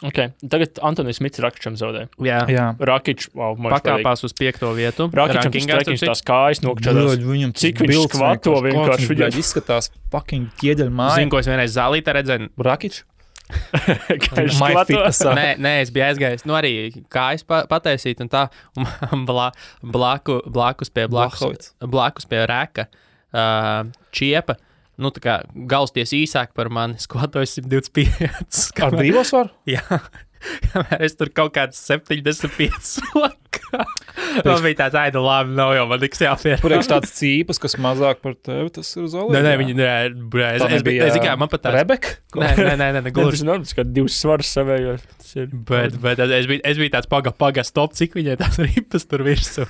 Okay. Tagad Antonijs Smits Rakičam zaudēja. Jā. Rakič, pakāpās uz 5. vietu. Rakičam strekings tās kājas nokčadās. Cik viņš skvato vienkārši. Viņam izskatās fucking ķieģeļu māja. Zinu, ko es vienreiz zālītē redzēju. Rakič? Nē, es biju aizgājis. Arī kājas pataisīt un tā. Un blakus pie Reka Čiepa. Tā kā galsties īsāk par mani, skvatoju 125. Ar brīvos varu? Jā. Es tur kaut kāds 75 lakā. Man bija tāds, labi, nav jau man tiks jāpierāda. Priekš tāds cīpas, kas mazāk par tevi, tas ir uz olību? Nē, es kā man pat tāds. Rebeka? Nē, gluži. Tas kā divas svaras savējos. Bet es biju tāds paga stop, cik viņai tās ripas tur virsū.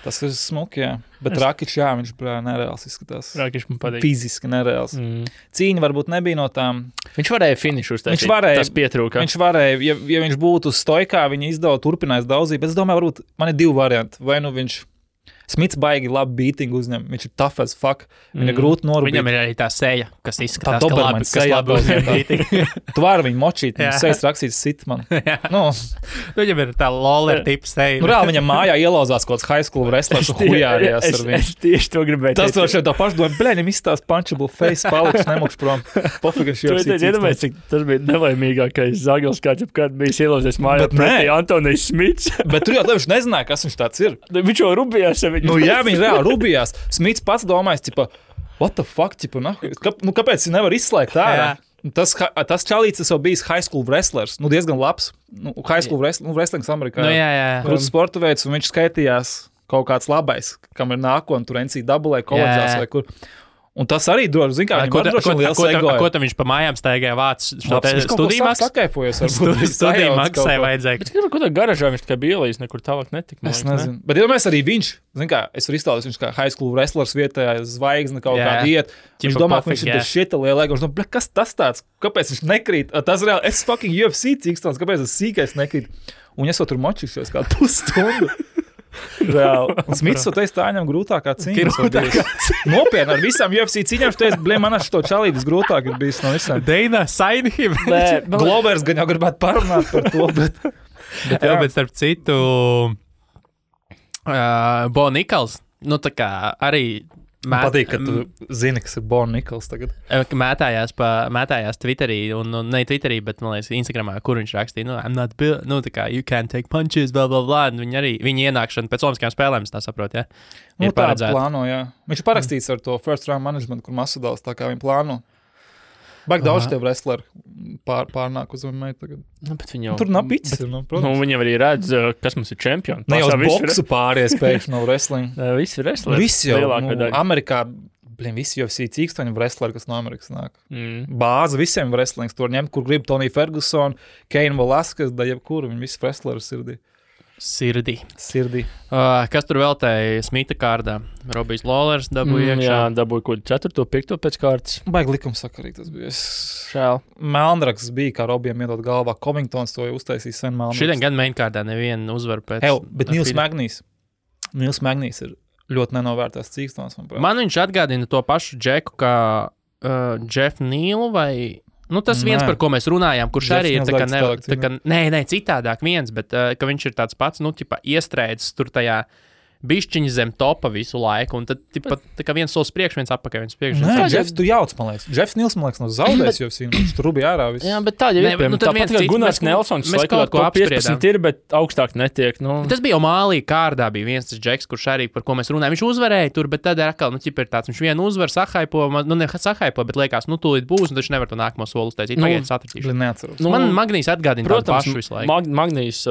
Tas ir smuki, jā. Bet Rakič, viņš nereāls izskatās. Rakič man patīk. Fiziski nereāls. Cīņa varbūt nebija no tām. Viņš varēja finišu uztaisīt. Tas pietrūka. Viņš varēja, ja viņš būtu stoikā, viņa izdeva turpinājis daudzīt. Bet es domāju, varbūt man ir 2 varianti. Vai viņš Smits baigi labi beatingu uzņem. Viņš ir tough as fuck. Viņa grūti norūpīt. Viņam ir arī tā seja, kas izskatās, ka labi uzņem beatingu. Tu vari viņu močīt, viņam sejas rakstīts sit man. Viņam ir tā loller tipa seja. Reāli viņam mājā ielauzās kaut kāds high school wrestlers un hujārījās ar viņu. Es tieši to gribēju. Tas to šeit tā paši domāju, viņam izstās punchable face, paliks nemukš prom. Pofīgi, tas bija nelaimīgākais zagels, kāds jebkad bijis ielauzies mājā pretī Antonijs Smits. Bet tur jau viņš nezināja, kas viņš tāds ir. Viņš jau rubījās. Jā, viņi reāli rubījās. Smits pats domājas, what the fuck, kāpēc viņi nevar izslēgt ārā? Tas čalīts jau bijis high school wrestlers, diezgan labs. High school wrestlings Amerikā. Krūts sporta veids, un viņš skaitījās kaut kāds labais, kam ir nākotne, tur NCAA koledžās vai kur. Un tas arī droši, zin kā, viņam droši liels egoja. Ko tam viņš pa mājām staigāja vācis? Studiju maksā? Studiju maksai vajadzēja. Bet kaut kādā garažā viņš tikai bija ielīdz, nekur tālāk netika. Es nezinu. Bet iedomājies arī viņš, zin kā, es varu izstāstīt, viņš kā high school wrestlers vietējā zvaigzne kaut kādā iet. Viņš domā, ka viņš ir šita liela ego. Viņš domā, kas tas tāds? Kāpēc viņš nekrīt? Tas reāli, es fucking UFC cīkstons, kāpēc tas sīkais nekrīt? Un es vēl tur močīšos kādu pusstundu. Reāli. Un Smits teica, tā viņam grūtākā cīņa. Nopietni, ar visām UFC cīņām, viņš teica, blē, man ar šo čalīti visgrūtāk ir bijis no visām. Deina, sign him. Glovers gan jau gribētu parunāt par to, bet bet starp citu, Bo Nikals, nu tā kā arī man patīk, ka tu zini, kas ir Bo Nikals tagad. Mētājās Twitterī, un ne Twitterī, bet, man liekas, Instagramā, kur viņš rakstīja, I'm not built, tā kā, you can't take punches, blah, blah, blah, un viņa ienākšana pēc olimpiskajām spēlēm, tā saprot, ja? Ir paredzēta. Plāno, jā. Viņš ir parakstīts ar to first round management, kur Masvidals, tā kā viņi plāno. Baigi daudz tev wrestleri pārnāk uz MMA tagad. Tur nav picis. Viņam arī redz, kas mums ir čempioni. Ne jau uz boksu pāries pēkšņi no wrestling. Visi wrestleri. Visi jau. Amerikā, visi UFC cīkstoņi wrestleri, kas no Amerikas nāk. Bāze visiem wrestlings tur ņemt, kur grib Tony Ferguson, Cain Velasquez, da jebkuru, viņi visi wrestleri sirdī. Kas tur vēl tēja Smita kārdā? Robijs Lawlers dabūja iekšā. Jā, dabūja kaut 4. 5. pēc kārtas. Baigi likumsakarīgi tas bija. Šēl. Melnraks bija, kā Robijam iedot galvā. Covingtons to jau uztaisīja sen Melnraks. Šodien gan main kārdā nevienu uzvaru pēc. Bet Nils Magnīs ir ļoti nenovērtās cīkstons. Man viņš atgādina to pašu Džeku, kā Jeff Neal vai... Nu, tas viens, par ko mēs runājām, kurš arī ir citādāk viens, bet ka viņš ir tāds pats, iestrēdzis tur tajā bišķiņa zem topa visu laiku, un tad tā kā viens solis priekš, viens atpakaļ, viens priekš. Nē, Jeffs, tu jauc, man liekas. Jeffs Nils, man liekas, no zaudēs jau viņš tur bija ārā viss. Jā, bet tā jau ir. Tāpat kā Gunārs Nelsons, mēs kaut ko apspriedām. Ir, bet augstāk netiek. Tas bija jau Mālī kārdā, bija viens tas Džeks, kurš arī, par ko mēs runājām. Viņš uzvarēja tur, bet tad atkal, ir tāds, viņš vienu uzvaru sahaipo, bet liekas, tūlīt būs, un taču nevar to nākamo soli uztaisīt. Pagaidiet, satratīšu. Man Magnīs atgādina tādu pašu visu laiku. Magnīs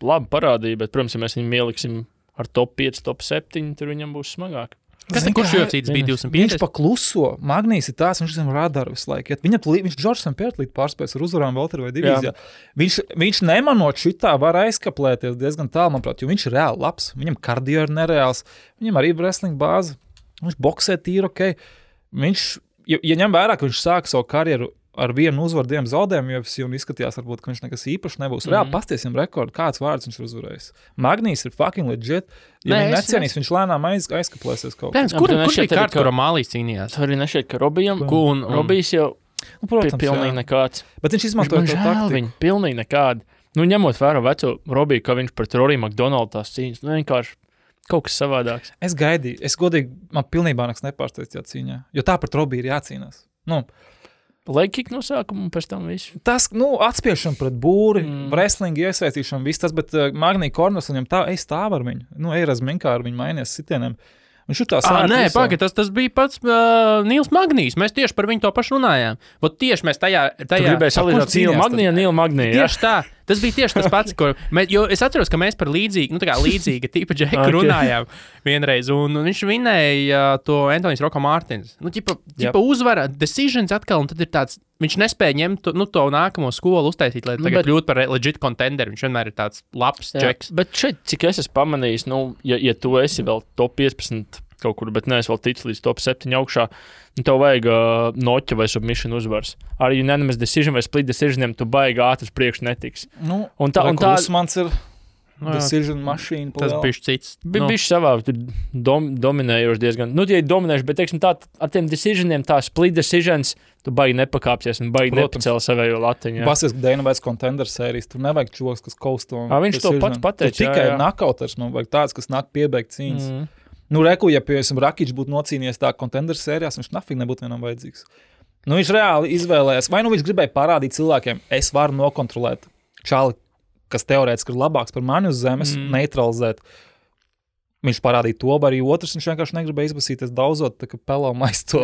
labi parādīja, bet, protams, ja mēs viņu ieliksim ar top 5, top 7, tur viņam būs smagāk. Kurš UFC bija 250? Viņš pakluso. Magnīs ir tās, viņš zem radaru visu laiku. Viņš Džordžam Pērtlīt pārspējas ar uzvarām Valteru vai divīzijā. Viņš nemanot šitā var aizkaplēties diezgan tālu, manuprāt, jo viņš ir reāli labs. Viņam kardio ir nereāls. Viņam arī wrestling bāze. Viņš boksē tīri, ok. Viņš, ja ņem vērā, ka viņš sāka savu karjeru ar vienu uzvaru, 2 zaudējumu UFC un izskatījās, varbūt, ka viņš nekas īpaši nebūs. Reāli pastiesim rekordu, kāds vārds viņš ir uzvarējis. Magnīs ir fucking legit. Ja viņi necienīs, viņš lēnām aizkaplēsies kaut kā. Kur bija kārta, kura Mālīs cīnījās? Tur arī nešķiet, ka Robijs jau pilnīgi nekāds. Bet viņš izmantoja to taktiku. Pilnīgi nekādi. Ņemot vērā veco Robiju, ka viņš pret Rory McDonald tās cīņas, vienkārši kaut kas savādāks. Es gaidīju. Es godīgi, man pilnībā nekas nepārsteidz tajā cīņā. Jo tā pret Robiju ir jācīnās. Legkick no sākuma un pēc tam visu. Tas, atspiešana pret būri, wrestling iesaistīšana, viss tas, bet Magnī Korners viņam stāv ar viņu. Eirazminkā ar viņu mainies sitieniem. Viņš ir tā sākt. Tas bija pats Nils Magnīs. Mēs tieši par viņu to pašu runājām. Tieši mēs tajā Tu gribēji salīdzināt Nīlu Magniju. Tieši tā. Tas bija tieši tas pats, jo es atceros, ka mēs par līdzīga tipa Džeku runājām vienreiz, un viņš vinēja to Antonijs Roko Mārtins. Uzvara, decisions atkal, un tad ir tāds, viņš nespēja ņemt to nākamo skolu uztaisīt, lai tagad kļūt par legit contender. Viņš vienmēr ir tāds labs Džeks. Bet šeit, cik es esmu pamanījis, ja tu esi vēl top 15 kaut kur, bet neesmu vēl ticis līdz top 7 augšā, tev vajag noķa vai submission uzvars. Ar unanimous decision vai split decisioniem tu baigi ātri priekš netiks. Un Usmans ir decision mašīna. Tas bišķi cits. Bišķi savā dominējoši diezgan. Ja dominējuši, bet, teiksim, tā ar tiem decisioniem, tā split decisions, tu baigi nepakāpsies un baigi nepacēl savējo latiņu. Basies Dana White contender sērijas, tur nevajag čoks, kas kausto. Viņš to pats pateica. Tikai knockouteris, man vajag tāds, kas nāk piebeigt cīņas. Ja piemēram Rakičs būtu nocīnījies tā contender sērijās, viņš nafīgi nebūtu vienam vajadzīgs. Viņš reāli izvēlējās, vai viņš gribēja parādīt cilvēkiem, es varu nokontrolēt čali, kas teorētiski ir labāks par mani uz zemes, neutralizēt. Viņš parādīja to, vai arī otrs, viņš vienkārši negribēja izbasīties daudzot, tā kā pelomais to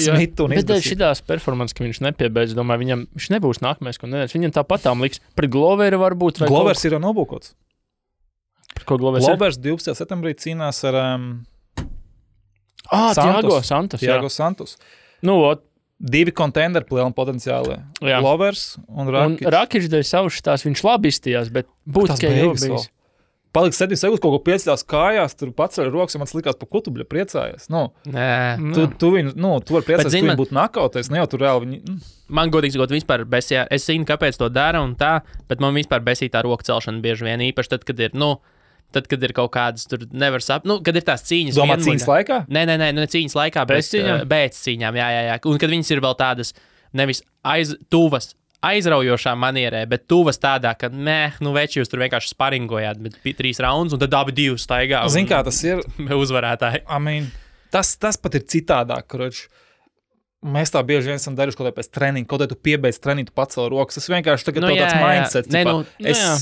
Smitu un izbasīt. Bet šitās performances, ka viņš nepiebeidz, domāju, viņš nebūs nākamais, ko nedēļas. Viņam tāpatām liks. Pret Gloveru varbūt. Glovers ir nobūkots. Ko Glovers 12. septembrī cīnās ar Tiago Santos. 2 contenderi lielam potenciāli. Glovers un Rakičs. Un Rakičs dēļ savu šitās, viņš labi izstījās, bet būtiski jau bijis. Paliks 7 sekundes, kaut ko piecās kājās, tur paceļ rokas, ja man likās, pa ko tu priecājies. Tu vari priecāties, ka viņi būtu nakauties, ne jau tur reāli viņi... Man godīgi sakot, vispār besījā, es zinu, kāpēc to dara un tā, bet man vispār besīja tā roka celšana bieži vien īpaši tad, kad ir, Tad, kad ir kaut kādas, tur nevar saprast, kad ir tās cīņas. Domā, cīņas laikā? Nē, ne cīņas laikā, bet pēc cīņām, jā. Un kad viņas ir vēl tādas nevis tuvas, aizraujošā manierē, bet tuvas tādā, ka, veči jūs tur vienkārši sparingojāt, bet 3 raundus, un tad abi 2 staigā. Zin, kā tas ir? Uzvarētāji. Tas pat ir citādāk, kroč. Mēs tā bieži vien esam darījuši kaut kādā pēc treniņa, kaut kā tu piebeidz treniņu, tu pacēl rokas. Tas vienkārši tagad tāds mindset.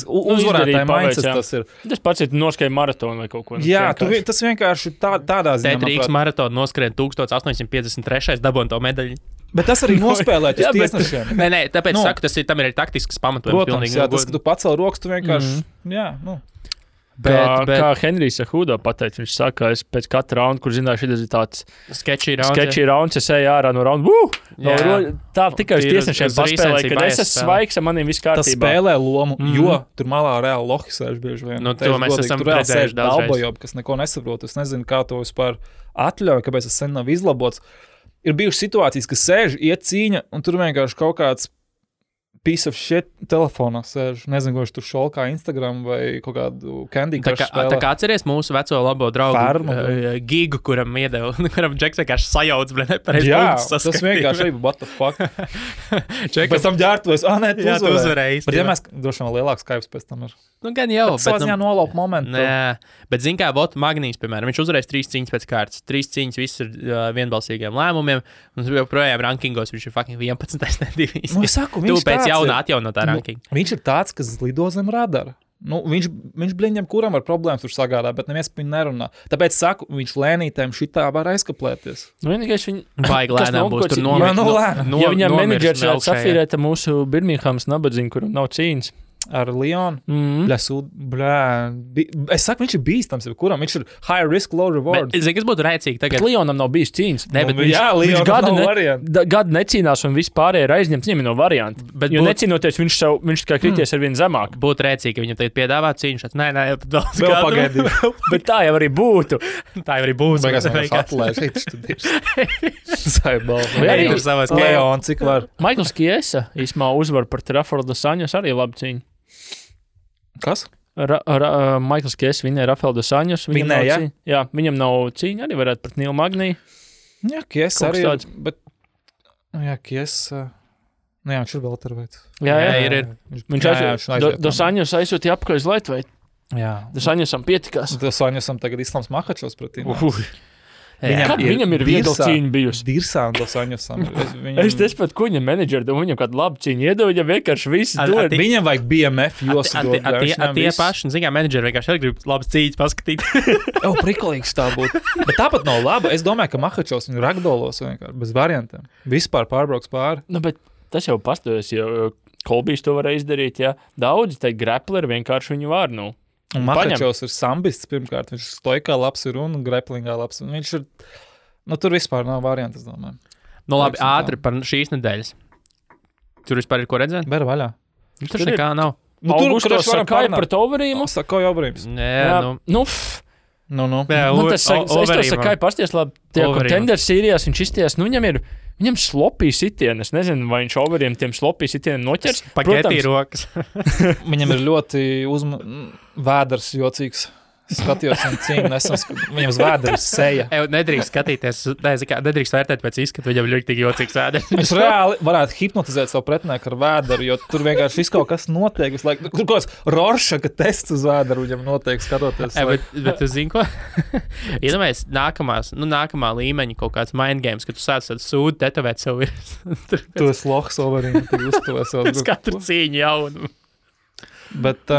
Uzvarētāji mindset tas ir. Tas pats ir noskrien maratonu vai kaut ko. Jā, tas vienkārši tādā ziņā. Rīgas maratonu noskrien 1853. dabon to medaļu. Bet tas arī nospēlēt uz tiesnešiem. Nē, tāpēc saku, tam ir taktisks pamatojums. Protams, jā, tas, ka tu pacēl rokas, tu vienkārši, Kā Henrijs Hudo pateica, viņš saka, ka es pēc katra raunda, kur zināju, šis ir tāds sketchy rounds, es eju ārā no raunda. Tā tikai uz tiesnešiem paspēlēja, kad es esmu svaigs, maniem viss kārtībā. Tas spēlē lomu, jo tur malā reāli lohi sēž bieži vien. To mēs esam redzējuši daudz. Kas neko nesaprot, es nezinu, kā to vispār atļauj, kāpēc tas sen nav izlabots. Ir bijušas situācijas, ka sēž, iet cīņa, un tur vienkārši kaut kāds piece of shit telefonā sēž. Nezinu, ko viņš tur šolkā Instagram vai kaut kādu Candy Crush spēlē. Tā kā atceries mūsu veco labo draugu Gigu, kuram iedeva, kuram Džeks vienkārši sajauc, bet nepareizi punktus saskatīja. Tas vienkārši arī, what the fuck. Pēc tam ģērtuvēs, tu uzvarēji. Bet ja mēs droši vien lielāks kaips pēc tam ir. Gan jau. Bet savā ziņā nolaup momentu. Nē, bet zin kā, Magnijs, piemēram, viņš uzvarēs 3 cīņas pēc kārtas. 3 cīņas, viss ir vienbalsīgiem lēmumiem, un joprojām rankingos viņš ir fucking 11. nedivīs. Es saku, viņš pēc jauna atjaunotā rankinga. Viņš ir tāds, kas lido zem radara. Viņš bliņķiem, kuram ar problēmas tur sagādā, bet neviens par viņu nerunā. Tāpēc saku, viņš lēnītēm šitā var aizkaplēties. Vienīgais viņa baigi lēnām būs tur ja viņam menedžers varētu safīrēt mūsu Birminghams nabadzību, kuram nav cīņas. Ar Leonu. Es saku, viņš ir bīstams, kuram viņš ir high risk, low reward. Es zinu, kas būtu rēcīgi tagad. Bet Leonam nav bijis cīņas. Viņš gadu necīnās un vispārēji ir aizņemts. Viņam ir no varianti. Jo necīnoties, viņš tikai krities ar vienu zemāk. Būtu rēcīgi, ka viņam tagad piedāvā cīņu. Nē, vēl pagaidīt. Bet tā jau arī būtu. Leon, cik var. Maikls Kiesa īsumā uzvar par Rafaelu dos Anjos arī labu cīņu. Kas? Maikls Kiesa vinēja Rafaelu dos Anjos. Jā, viņam nav cīņa, arī varētu pret Nilu Magniju. Jā, Kiesa arī ir, bet... Jā, Kiesa... Jā, viņš ir vēl terveids. Jā, ir. Dos Anjos aizsūtīja apakaļ uz Lightveight. Jā. Dos Anjosam pietikās. Dos Anjosam tagad Islams Makhačovs pretī. Viņam ir viegla cīņa bijusi. Dirsā un Dos Anjosam. Es tespētu, ko viņam menedžeri deva, viņam kādu labu cīņu iedeva, viņam vienkārši visu dod. Viņam vajag BMF josu dod. Tie paši, zin kā, menedžeri vienkārši arī grib labas cīņas paskatīt. Prikolīgs tā būtu. Bet tāpat nav laba. Es domāju, ka Makhačovs viņu ragdolos vienkārši, bez variantiem. Vispār pārbrauks pāri. Bet tas jau pastojas, jo Kolbijs to varēja izdarīt, jā. Daudzi te grapleri vienkārši viņu var, Un Makhačovs ir sambists pirmkārt, viņš stoikā labs ir un graplingā labs. Un viņš ir, tur vispār nav varianti, es domāju. Labi, ātri par šīs nedēļas. Tur vispār ir ko redzēt? Ber vaļā. Tur nekā nav. Augusto Sakai pret Overīmu. Sakai Overīms. Es to Sakai pasties labi. Tie contenders sīrijās viņš izties, viņam slopī sitieni. Es nezinu, vai viņš Overiem tiem slopī sitieniem noķers. Pagetī rokas. Viņam ir ļoti vēders jocīgs. Skatījos un cīņu, viņam uz vēders seja. Nedrīkst skatīties, nedrīkst vērtēt pēc izskatu, viņam ļoti jocīgs vēders. Viņš reāli varētu hipnotizēt savu pretinieku ar vēderu, jo tur vienkārši viss kaut kas notiek. Tur kaut kāds Roršaka tests uz vēderu viņam notiek skatoties. Bet tu zini ko? Iedomājies nākamā līmeņa kaut kāds mind games, ka tu sāc sūdu tetovēt savu virsmu. Tu esi lohs Overīm, tu uztuvē savu grupu. Katru cīņu jaunu. Bet...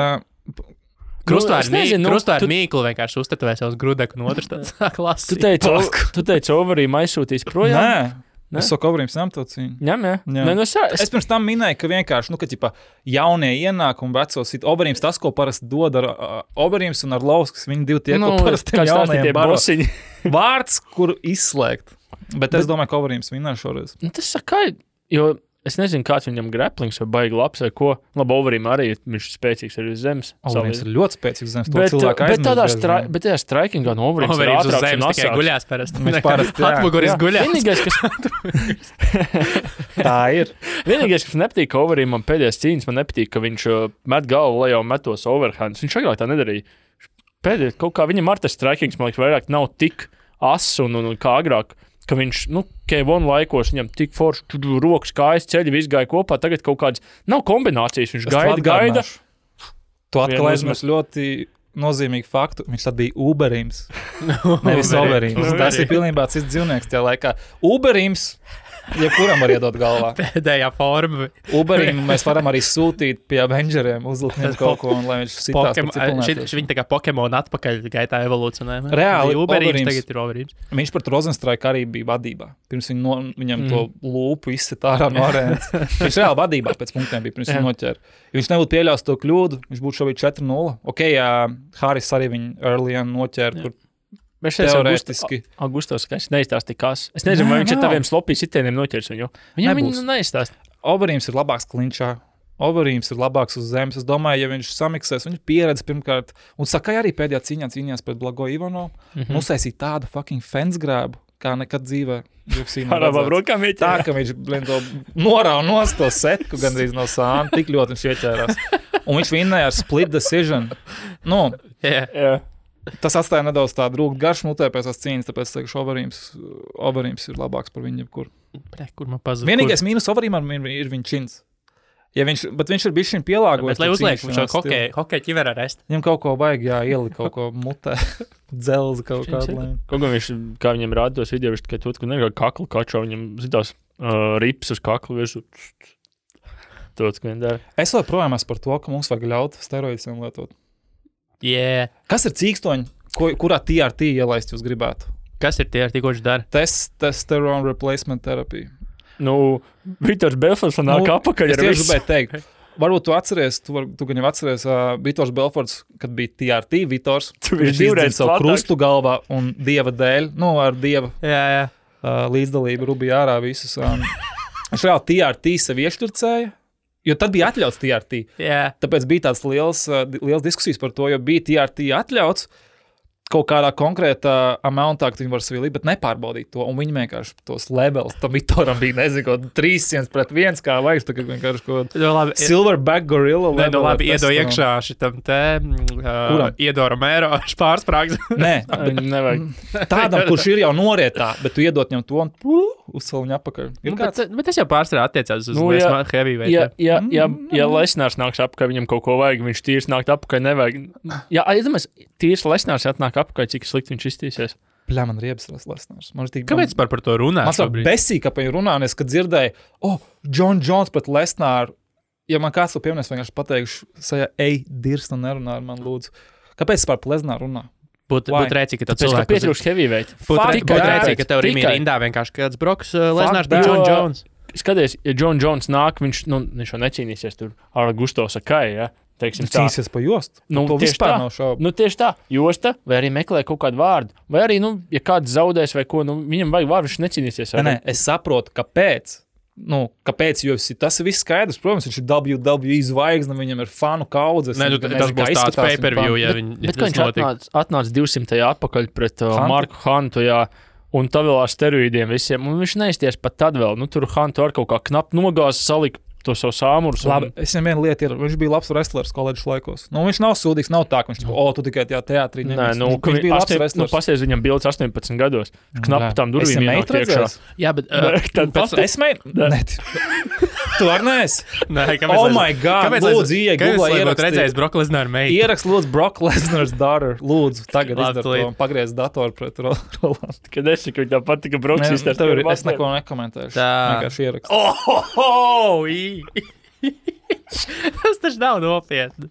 Krustvērnu mīklu vienkārši uztetovē savus grudeku un otrs tāds klasi. Tu teici, Overīm aizsūtīs projām? Nē. Es saku, Overīms ņem to cīņu. Ņem. Es pirms tam minēju, ka vienkārši, jaunie ienāk un vecos sit. Overīms tas, ko parasti dod ar Overīms un ar Lauskas, viņi divi tie, ko parasti jaunajiem baro. Vārds, kur izslēgt. Bet es domāju, ka Overīms vinnē šoreiz. Tas Sakai, jo... Es nezinu, kāds viņam graplings vai baigi labs vai ko. Labi, Overīm arī viņš ir spēcīgs arī uz zemes. Overīms ir ļoti spēcīgs zemes. Bet tādā strikingā no Overīms ir ātrāks un asāks. Tikai guļās parasti. Viņš parasti, jā. Atmuguris guļās. Vienīgais, kas... Tā ir. Vienīgais, kas nepatīk Overīmam pēdējās cīņas, man nepatīk, ka viņš met galvu lejā un metos overhands. Viņš agrāk tā nedarīja. pēdējais kaut kā viņam ar tas strikings, man liekas, vairāk nav tik ass un kā agrāk, ka viņš, K1 laikos viņam tik forši rokas, kājas, ceļi, viss gāja kopā, tagad kaut kādas nav kombinācijas, viņš gaida. Tu atkal aizmirst ļoti nozīmīgu faktu, viņš tad bija Uberims, nevis Overims. Tas ir pilnībā cits dzīvnieks tajā laikā. Uberims, jebkuram var iedot galvā. Pēdējā forma. Uberim mēs varam arī sūtīt pie Avengeriem, uzlikt viņam kaut ko, un lai viņš sitās par ciklonētieši. Viņi tā kā Pokemon atpakaļ gaitā evolūcionē. Reāli, Uberims tagad ir Overims. Viņš pat Rozenstrike arī bija vadībā. Pirms viņam to lūpu izsit ārā no arēnas. Viņš reāli vadībā pēc punktiem bija, pirms viņu noķēra. Ja viņš nebūtu pieļaus to kļūdu, viņš būtu šobrīd 4-0. Ok, Haris arī viņu earlyan noķēra, kur teorētiski. Augustos, ka es neizstāstīju kas. Es nezinu, vai viņš ar taviem slopī sitieniem noķers viņu. Viņam neizstāst. Overims ir labāks klinčā. Overims ir labāks uz zemes. Es domāju, ja viņš samiksēs, viņš pieredze pirmkārt. Un Sakai arī pēdējā cīņā cīnījās pret Blago Ivanovu. Uztaisīja tādu fucking fensgrābu, kā nekad dzīvē. Tā, ka viņš to norāva nost to setku gandrīz no sāna. Tik ļoti viņš ieķērās. Un viņš vinnēja ar split decision. Tas atstāja nedaudz tādu rūgt garšu mutē pēc tās cīņas, tāpēc teikšu, Overims ir labāks par viņu jebkur. Kur man pazuda? Vienīgais mīnus Overimam ir viņa čins. Ja bet viņš ir bijis šim pielāgojis. Bet lai uzliek, viņš jau hokeja ķiverā rest. Viņam kaut ko vajag, ielikt kaut ko mutē, dzelzi kaut kādu lēmu. Kaut kā viņš, kā viņam rāda tos video, viņš tikai to, ka nekā kaklu kačo, viņam zitās rips uz kaklu virsū. Tots, ka viņi dara. Es vēl projām esmu par to, ka mums vajag ļaut steroidiem lietot. Yeah. Kas ir cīkstoņi, kurā TRT ielaist jūs gribētu? Kas ir TRT, ko viņš dara? Testosterone replacement therapy. Vitors Belforts nāk apakaļ ar visu. Es gribēju teikt, varbūt tu atceries, tu gan jau atceries Vitors Belforts, kad bija TRT Vitors. Viņš izdzina savu krustu galvā un dieva dēļ, ar dieva līdzdalību rubīja ārā visus. Viņš reāli TRT sev iešturcēja. Jo tad bija atļauts TRT. Yeah. Tāpēc bija tāds liels diskusijas par to, jo bija TRT atļauts kaut kādā konkrētā amountā, ka viņi var sevi likt, bet nepārbaudīt to. Un viņi vienkārši tos levels, tam Vitoram bija, nezinu, 300-1, kā vajag, tā kā vienkārši kaut silverback gorilla level. Nē, labi, iedo iekšā šitam iedo Romero pārsprāgs. Nē, nevajag. Tādam, kurš ir jau norietā, bet tu iedot viņam to un uzsal viņu apakaļ. Bet tas jau pārstrā attiecās uz heavyweight. Ja Lesnārs nāks apakaļ, viņam kaut ko vajag, viņš tīrs nākt apakaļ, nevajag. Ja, aizdomās, tīrs Lesnārs atnāk apakaļ, cik slikti viņš iztīsies. Bļā, man riebas Lesnārs. Kāpēc par to runā? Man sāk besīgi, ka pa viņu runā, un es, kad dzirdēju, John Jones pret Lesnāru, ja man kāds to pieminēs, vienkārši pateikšu, dirst un nerunā ar man lūdzu. Kāpēc par Lesnāru runā? Būtu rēcīgi, ka tev cilvēki... Tāpēc, ka pietrūkst heavyweight. Būtu rēcīgi, ka tev Rimī rindā vienkārši kāds Broks Lesnārs par John Jones. Skaties, ja John Jones nāk, viņš jau necīnīsies tur ar Augusto Sakai, ja? Teiksim, cīnīsies pa jostu. To vispār nav šaubu. Tieši tā, josta, vai arī meklē kaut kādu vārdu. Vai arī, ja kāds zaudēs vai ko, viņam vajag vārdu, viņš necīnīsies. Nē, es saprotu, kāpēc. Kāpēc, jo tas ir viss skaidrs. Protams, viņš ir WWE zvaigzne, viņam ir fanu kaudzes. Nē, tas būs tāds pay-per-view, ja bet viņš atnāca 200. atpakaļ pret Marku Huntu, un tā vēl ar steroīdiem visiem, un viņš neizties pat tad vēl. Tur Huntu ar kaut kā knap nogāzi salika to savu sāmurus. Labi, es viņam vienu lietu iedodu. Viņš bija labs wrestlers koledžas laikos. Viņš nav sūdīgs, nav tā, ka viņš tu tikai tajā teātrī. Nē, viņš bija labs wrestlers. Pasies viņam bildes 18 gados. Viņš knap tam durvīm ienāk iekšā. Jā, bet... Es mēģinu? Nē. Tu var neesi? Nē, oh my God, lūdzu, ieeja Googlā ierakstīt. Redzējis Brock Lesnar meitu. Ierakst, lūdzu, Brock Lesnar's daughter. Lūdzu, tagad izdara to un pagriez datoru pret Rolandu. Kad es saku, tā patika Brocks izstāst. Es neko nekomentēšu. Vienkārši ierakst. Tas taču nav nopietni.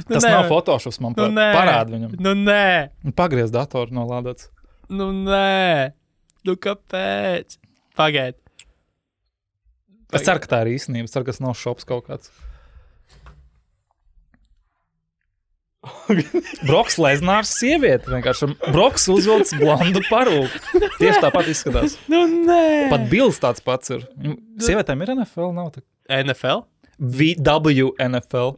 Tas nav Photoshops, man parāda viņam. Nē. Pagriez datoru nolādāts. Nē. Kāpēc? Pagaid. Es ceru, ka tā ir īstenība. Es ceru, ka tas nav šops kaut kāds. Broks Lesnārs sieviete. Vienkārši Broks uzvilcis blondu parūku. Tieši tāpat izskatās. Nē. Pat bilds tāds pats ir. Sievietēm ir NFL? Nav tā. NFL? WNFL.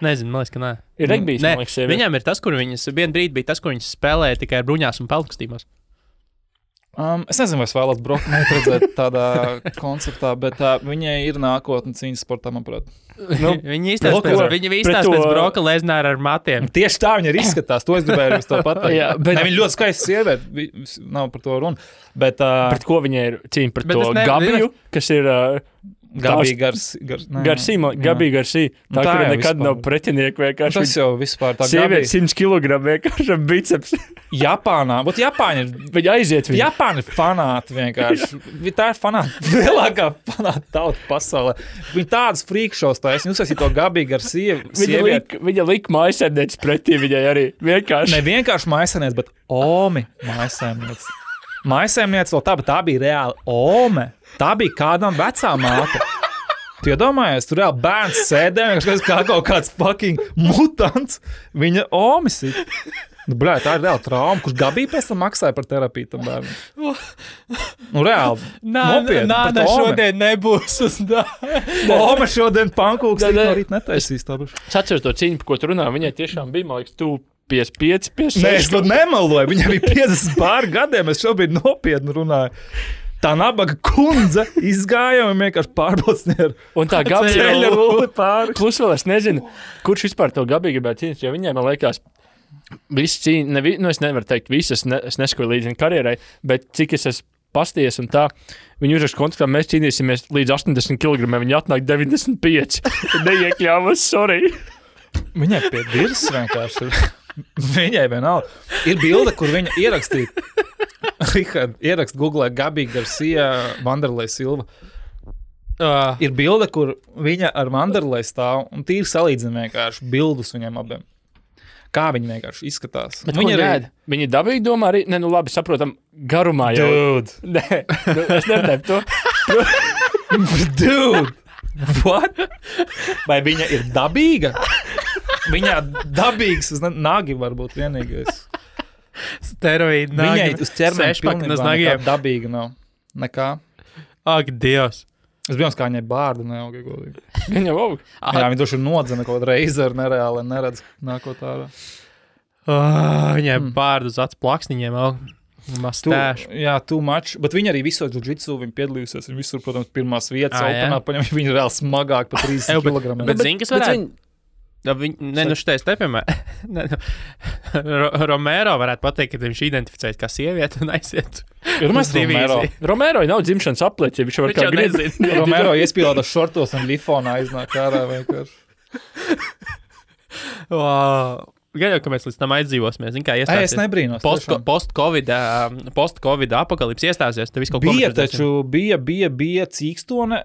Nezinu, man liekas, ka nē. Ir regbijs, man liekas, sieviete. Viņām ir tas, kur viņas, vienu brīdi bija tas, kur viņas spēlēja tikai ar bruņās un peltkostīmos. Es nezinu, vai es vēlos Broku redzēt tādā konceptā, bet viņai ir nākotne cīņas sportā, manuprāt. Viņa izstāsta pēc Broka Lesnara ar matiem. Tieši tā viņa ir izskatās, to es gribēju jums to pateikt. Viņa ļoti skaista sieviete, nav par to runa. Bet, pret ko viņa ir cīņa? Pret to Gabiju, kas ir... Gabija Garsī. Tā, kur nekad nav pretinieki vienkārši. Tas jau vispār tā sieviete 100 kg vienkārši ar biceps. Japānā, bet Japāņi ir... Viņa aiziet viņu. Japāņi ir fanāti vienkārši. Tā ir fanāti. Lielākā fanāta tauta pasaulē. Viņa tādas freakshows taisa. Jūs esat to Gabija Garsī sievieti. Viņa lika mājasēmnieci pretī viņai arī. Vienkārši. Ne vienkārši mājasēmnieci, bet Omi mājasēmnieci. Mājasēmnieci vēl tā, bet tā bija reāli Ome. Tā bija kādam vecā māte. Tu iedomājies, tur reāli bērns sēdē, kā kaut kāds fucking mutants. Viņa Omis ir. Bļā, tā ir reāli trauma, kurš Gabija pēc tam maksāja par terapiju tam bērnam. Reāli. Nopietni. Nāda šodien nebūs uz Ome šodien pankūks no rīt netaisīs. Es atceros to cīņu, par ko tu runā. Viņai tiešām bija, man liekas, 55, 56. Nē, es to nemaloju. Viņa bija 50 pār gadiem. Es šobrīd nopietni runāju. Tā nabaga kundze izgāja un vienkārši pārbaudīja. Un tā Gabija rulli pāri. Plus vēl es nezinu, kurš vispār to Gabiju gribētu cīnīt, jo viņai, man liekas, viss cīņa, es nevaru teikt visas, es neskoju līdz viņa karjerai, bet cik es esmu pasties un tā, viņi uzrakst kontaktā, mēs cīnīsimies līdz 80 kg, viņi atnāk 95. Neiekļāvas, sorry. Viņai pie dirs vienkārši ir. Viņai vienalga. Ir bilde, kur viņa ierakstīja. Rihard, ierakst Google Gabija Garcia, Vanderlei Silva. Ir bilde, kur viņa ar Vanderlei stāv un tīri salīdzina vienkārši bildus viņiem abiem. Kā viņi vienkārši izskatās. Viņi dabīgi domā arī, ne, nu labi, saprotam, garumā jau. Dude. Nē, es neredēju to. Dude. What? Vai viņa ir dabīga? Viņā dabīgs uz nagi varbūt vienīgais. Steroīdi nagi. Viņai uz ķermeni pilnībā nekā dabīga nav. Nekā. Ak, Dievs. Es biju kā viņai bārdu neauga godīgi. Viņa jau aug. Jā, viņa doši nodzina kaut kādu reizi ar nereāli neredz nākot ārā. Viņai bārdu uz acu plaksniņiem aug. Jā, too much. Bet viņa arī visos jiu-jitsu, viņa piedalījusies. Viņa visur, protams, pirmās vietas openā, paņem, viņa ir reāli smagāk pa 30 kg. Bet zini, kas varētu? Šitais te, piemēram, Romero varētu pateikt, ka viņš identificēs kā sievieti un aiziet. Romero nav dzimšanas aplieci, ja viņš var kā grib. Romero iespīlētas šortos un lifonā aiznāk ārā vienkārši. Gan jau, ka mēs līdz tam aizdzīvosimies. Zin, kā iestāsies. Es nebrīnos. Post-Covid apakalips iestāsies. Tev viss kaut bija taču, bija cīkstone.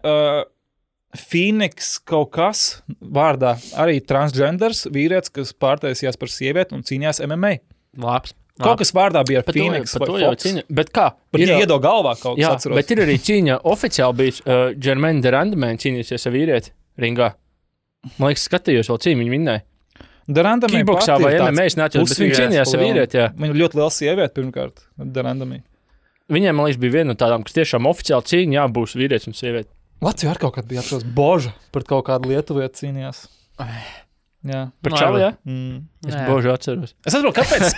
Phoenix kaut kas vārdā. Arī transgenders vīrietis, kas pārtaisījās par sievieti un cīnījās MMA. Labs. Kaut kas vārdā bija ar Phoenix vai Fox. Bet kā? Bet iedo galvā kaut kas atceros. Bet ir arī cīņa oficiāli bijis. Jermaine Durandamēn cīnīsies ar vīrieti ringā. Man liekas, skatījos vēl cīņu, viņu vinnēja. Kickboksā vai MMA es neatceros, bet viņi cīnījās ar vīrieti, jā. Viņa ļoti liela sieviete pirmkārt, Durandamī. Viņiem, man liekas, bija viena no tādām, kas tiešām oficiāli cīņa, jā, būs vīrietis un sieviete. Latvijā ar kaut kādu bija atceros Boža, pret kaut kādu lietuvieti cīnījās. Jā. Par čali, jā? Es Božu atceros. Es atceros, kāpēc es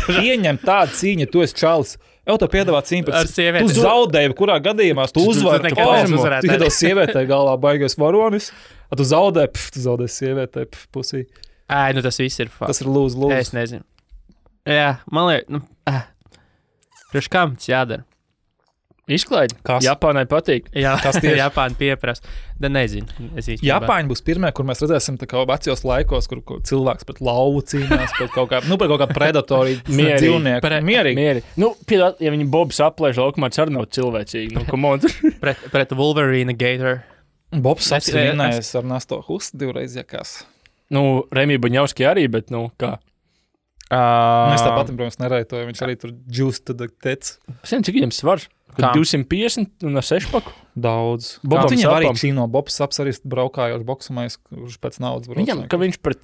pieņem tādu cīņu, tu esi čalis. Jau to piedāvā cīņu pret sievieti. Tu zaudēji, kurā gadījumā tu uzvari palmu. Tu iedos sievietei galvā baigais varonis, tu zaudēji sievietei pusī. Nu tas viss ir fakts. Tas ir lūdzu. Es nezinu. Jā, man liekas, priekš kam tas jādara? Izklaidi. Kas? Japānai patīk. Jā, kas tieši Japāna pieprasa. Da nezinu. Japāņi būs pirmie, kur mēs redzēsim tā kā vecajos laikos, kur cilvēks pret lauvu cīnās, pret kaut kā predatoriju dzīvnieku. Mierīgi. Nu, piedāt, ja viņi Bobs aplēž laukumā, tas arī nav cilvēcīgi. Nu, come on. pret Wolverine Gator. Bobs apsvinājās ar Nasto Hustu divreiz jakās. Nu, Remī Buņauski arī, bet, nu, kā? Mēs tāpat, protams, nerētoju. Viņš arī tur džūst tad tec. Es nezinu, cik viņam svars? 250 un ar 6 paku? Daudz. Viņam arī čīno. Bobs Saps arī braukājoši boksumais, kurš pēc naudas brauc. Viņam, ka viņš pret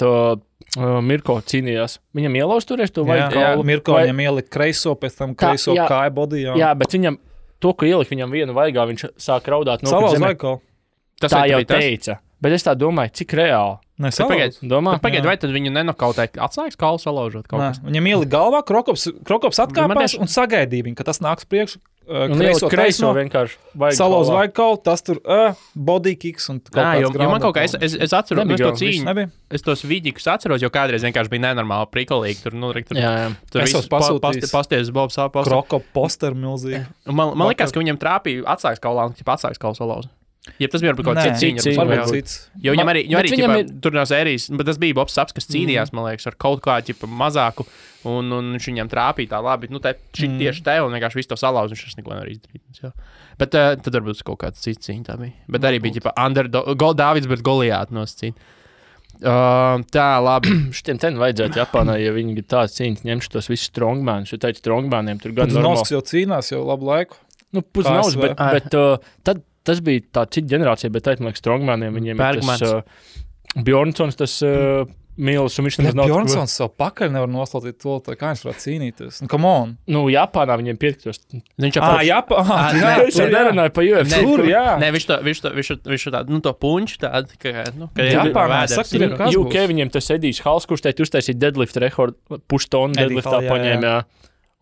Mirko cīnījās. Viņam ielauz turēs to vai? Jā, Mirko viņam ielika kreiso, pēc tam kreiso kāja bodijā. Jā, bet viņam, to, ka ielika viņam vienu vaigā, viņš sāk raudāt. Salauz vaigā. Tā jau teica. Bet es tā domāju, cik reāli. Pagaid, vai tad viņu nenokautē atslēgas kaulu salaužot kaut kas? Viņam ielika galvā, Krokops atkāpās un sagaidīja viņu, ka tas nāks priekš. Kreiso vienkārši salauz vajag kaut, tas tur body kicks un kaut kāds grāmatā. Man kaut kā, es atceros to cīņu, es tos vidikus atceros, jo kādreiz vienkārši bija nenormāli prikolīgi. Tur viss pasties Bobs apās. Krokop poster milzīgi. Man likās, ka viņam trāpīja atslēgas kaulā un atslēgas kaulu salauza. Ja tas bija kaut kāds cits cīņa. Jo viņam arī tur no sērijas, bet tas bija Bobs Saps, kas cīnījās, man liekas, ar kaut kādu mazāku, un viņš viņam trāpīja tā labi. Tieši te, un vienkārši visu to salauz, un viņš neko nevar izdarīt. Bet tad varbūt kaut kāds cits cīņa tā bija. Bet arī bija Dāvids, bet Goliāt nosacīt. Tā, labi. Šitiem ten vajadzētu Japānā, ja viņi tāds cīņas ņemšu tos visus strongmanus, jo teicu strongmaniem tur gan normāli. Nosks jau cīnās jau labu laiku. Pusnaus, bet tad tas bija tā cita ģenerācija, bet man liekas, strongmaniem viņiem Bergmans. Ir tas Bjornsons, tas Mīlis, un viņš nemaz nav... Bjornsons savu pakaļ nevar noslaucīt to, kā viņš varētu cīnīties. Come on! Japānā viņiem piektos. Viņš Japānā? Es nerunāju pa UFC. Nē, viņš tādu, to punču tādu, ka Japānā, UK viņiem tas Edijs Hals, kurš teikt uztaisīt deadlift rekordu, puštonu deadliftā paņēma,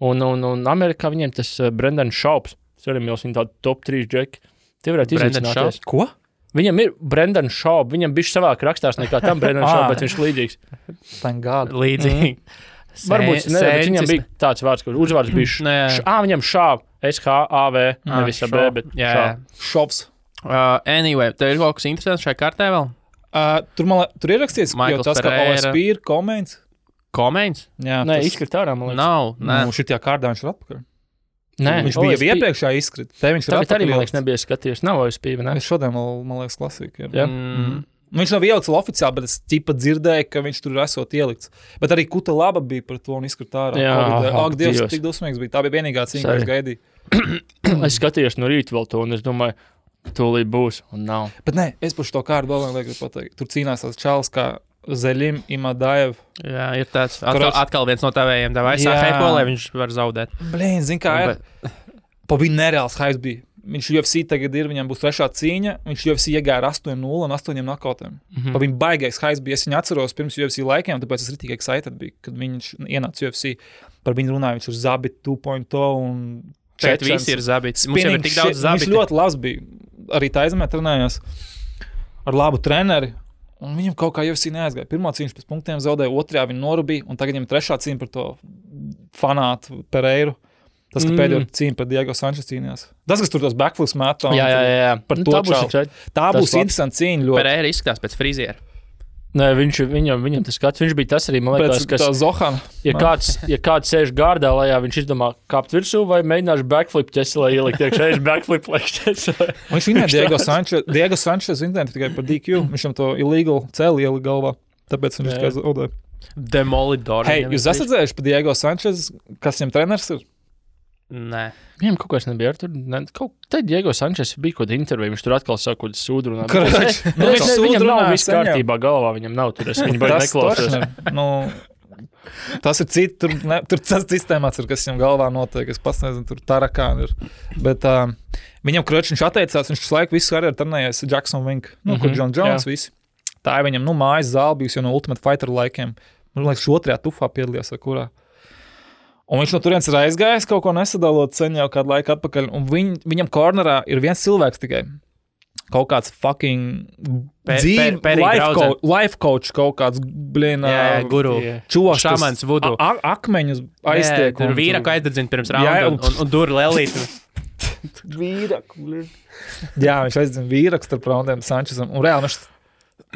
un Amerikā viņiem tas Brendan Schaubs. Tas arī Mīlis, viņa tādu top 3 džeki. Tie varētu izvicināties. Ko? Viņam ir Brendan Schaub, viņam bišķi savāk rakstās nekā tam Brendan Schaub, bet viņš līdzīgs. Thank God. Līdzīgi. Varbūt ne, bet viņam bija tāds vārds, kur uzvārds bija viņam Schaub, S-H-A-V, nevis A-B, bet Schaubs. Anyway, tev ir kaut kas interesants šajā kartē vēl? Tur ir rakstīts, jo tas, ka OSP ir Komeins. Komeins? Nē, izskrit ārā, man liekas. Nav. Šitajā kārdā viņš ir atpakaļ. Nē, viņš bija jau iepriekšā izkrita. Tagad arī, man liekas, nebija skatījies. Nav OSP, vai ne? Es šodien, man liekas, klasika. Viņš nav ielikts oficiāli, bet es ķipa dzirdēju, ka viņš tur esot ielikts. Bet arī Kuta Laba bija par to un izkrita ārā. Ak, Dievs, cik dusmīgs bija. Tā bija vienīgā cīņa, ko es gaidīju. Es skatījos no rīta vēl to, un es domāju, tūlīt būs, un nav. Bet nē, es par šo kārdu vēl negribu pateikt. Tur cīnās tās čalis kā Zeļim Imadaev. Jā, ir tāds. Atkal viens no tavējiem devā aizsā heipo, lai viņš var zaudēt. Blīn, zin kā ir. Pa viņu nereāls haips bija. Viņš UFC tagad ir, viņam būs 3. cīņa. Viņš UFC iegāja ar 8-0 un 8 knokautiem. Pa viņu baigais haips bija. Es viņu atceros pirms UFC laikiem, tāpēc es ritīgi excited biju, kad viņš ienāca UFC. Par viņu runāja, viņš ir Zabit 2.0 un... Šeit visi ir Zabits. Mums jau ir tik daudz Zabiti. Viņš ļoti labs bija. Arī Taizemē trenējās ar labu treneri. Un viņam kaut kā UFC neaizgāja. Pirmā cīņa pēc punktiem zaudēja, otrajā viņa norubīja, un tagad viņam 3. cīņa par to fanātu Pereiru. Tas, ka pēdējo cīņa par Diego Sančes cīnījās. Tas, kas tur tos backflips metā. Jā. Par to čalu. Tā būs interesanta cīņa ļoti. Pereira izskatās pēc friziera. Nē, viņam tas skats, viņš bija tas arī, man liekas, kas... Zohana. Ja kāds sēž gārdā lejā, viņš izdomā kāpt virsū vai mēģināšu backflip ķeselē ielikt iekšā, backflip ķeselē. Viņš vinēja Diego Sančes interneti tikai par DQ. Viņš to illegal cēli ielika galvā, tāpēc viņš tikai zaudēja. Demolidor. Hei, jūs esat dzējuši par Diego Sančes, kas viņam treneris ir? Nē. Viņam kaut kas nebija ar tur. Tad Diego Sančes bija kaut kāda intervija, viņš tur atkal saka, kaut sūdu runā. Viņam nav viss kārtībā galvā, viņam nav tur. Es viņu baigi neklausos. Tas ir cits, tur tas sistēmāts ir, kas viņam galvā notiek. Es pats nezinu, tur tarakāni ir. Bet viņam viņš atteicās, viņš laiku visu karjeru trenējies Jackson Wink, kur John Jones visi. Tā ir viņam, mājas zāle bijusi jau no Ultimate Fighter laikiem. Man liekas, 2. tufā piedalījās, vai kurā. Un viņš no turienes ir aizgājis, kaut ko nesadalot sen jau kādu laiku atpakaļ. Un viņam kornerā ir viens cilvēks tikai. Kaut kāds fucking life coach, kaut kāds guru. Čoks, šamans vudu. Akmeņus aiztiek. Tur vīraku aizdedzina pirms raunda un dur lelītu. Vīraku. Jā, viņš aizdedzina vīraku starp raundiem Sančesam. Un reāli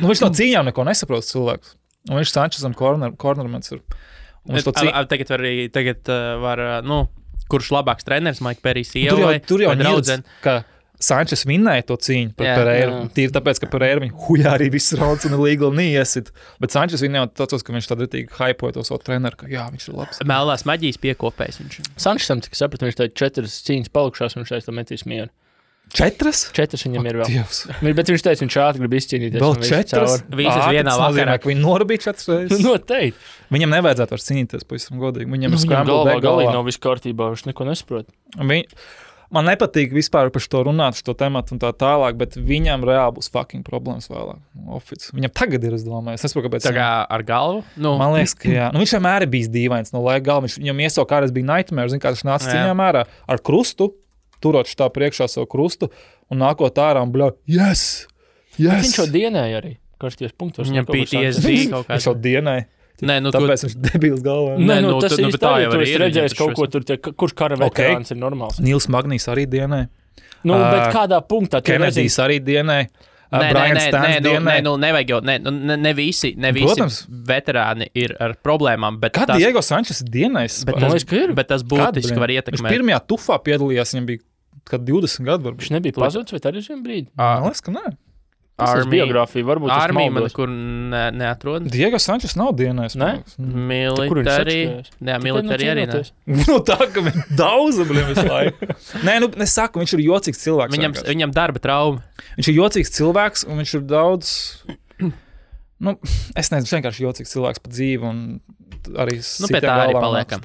viņš no cīņām neko nesaprot cilvēks. Un viņš Sančesam kornermens ir. Tagad var, kurš labāks treneris, Mike Perrijs ievai, tur jau draudzene, ka Sančes vinnēja to cīņu pret Pereiru. Tīri tāpēc, ka Pereiru viņu hujā arī viss rauds un legal neiesit. Bet Sančes vinnēja tādos, ka viņš tad ritīgi hypoja to savu treneru, ka jā, viņš ir labs. Melnās maģijas piekopējs viņš. Sančesam, cik sapratu, viņš teica 4 cīņas palikušās un viņš teica, metīs mieru. 4? 4 viņam ir vēl. Dievs. Bet viņš teica, viņš ātri grib izcīnīties. Vēl 4? Visas vienā vakarā. Viņi norabīja 4 reizes. Noteikti. Viņam nevajadzētu vairs cīnīties, pavisam godīgi. Viņam ir galvā nav viss kārtībā, viņš neko nesaprot. Man nepatīk vispār par to runāt, šo tematu un tā tālāk, bet viņam reāli būs fucking problēmas vēlāk. Viņam tagad ir, es domāju. Es nesaprotu, kāpēc. Tā kā ar galvu? Nu. Man liekas, ka jā. Viņš vienmēr ir bijis dīvains no laika galva. Viņam iesaukt kādreiz bija nightmare, zin, kā tas nāca cīņām ārā ar krustu, turot šitā priekšā savu krustu un nākot ārā un bļau, yes! Viņš jau dienēja arī. Karsties punktos. Viņam PTSD kaut kāds. Viņš jau dienēja. Nē, nu, tāpēc viņš debils galvā. Nē, tas īsti tā jau ir redzējis kaut ko tur, kurš kara veterāns ir normāls. Nils Magnijs arī dienē. Nu, bet kādā punktā? Kenedijs arī dienē. Nevajag jau, ne visi veterāni ir ar problēmām. Kad Diego Sančes ir dienējis? Bet tas būtiski var ietekmēt. Viņš pirmajā tufā piedalījās, viņam bija 20 gadu varbūt. Viņš nebija pazuds, vai arī šiem brīdī? Man liekas, ka nē. Biogrāfija varbūt Armija man kur neatrod. Diego Sančes nav dienējis. Ne? Militari arī ne. Nu tā, ka viņš daudz, visu laiku. Nē, nu, es saku, viņš ir jocīgs cilvēks. Viņam darba trauma. Viņš ir jocīgs cilvēks, un viņš ir daudz, nu, es nezinu, vienkārši jocīgs cilvēks pa dzīvi, un arī pie tā arī paliekam.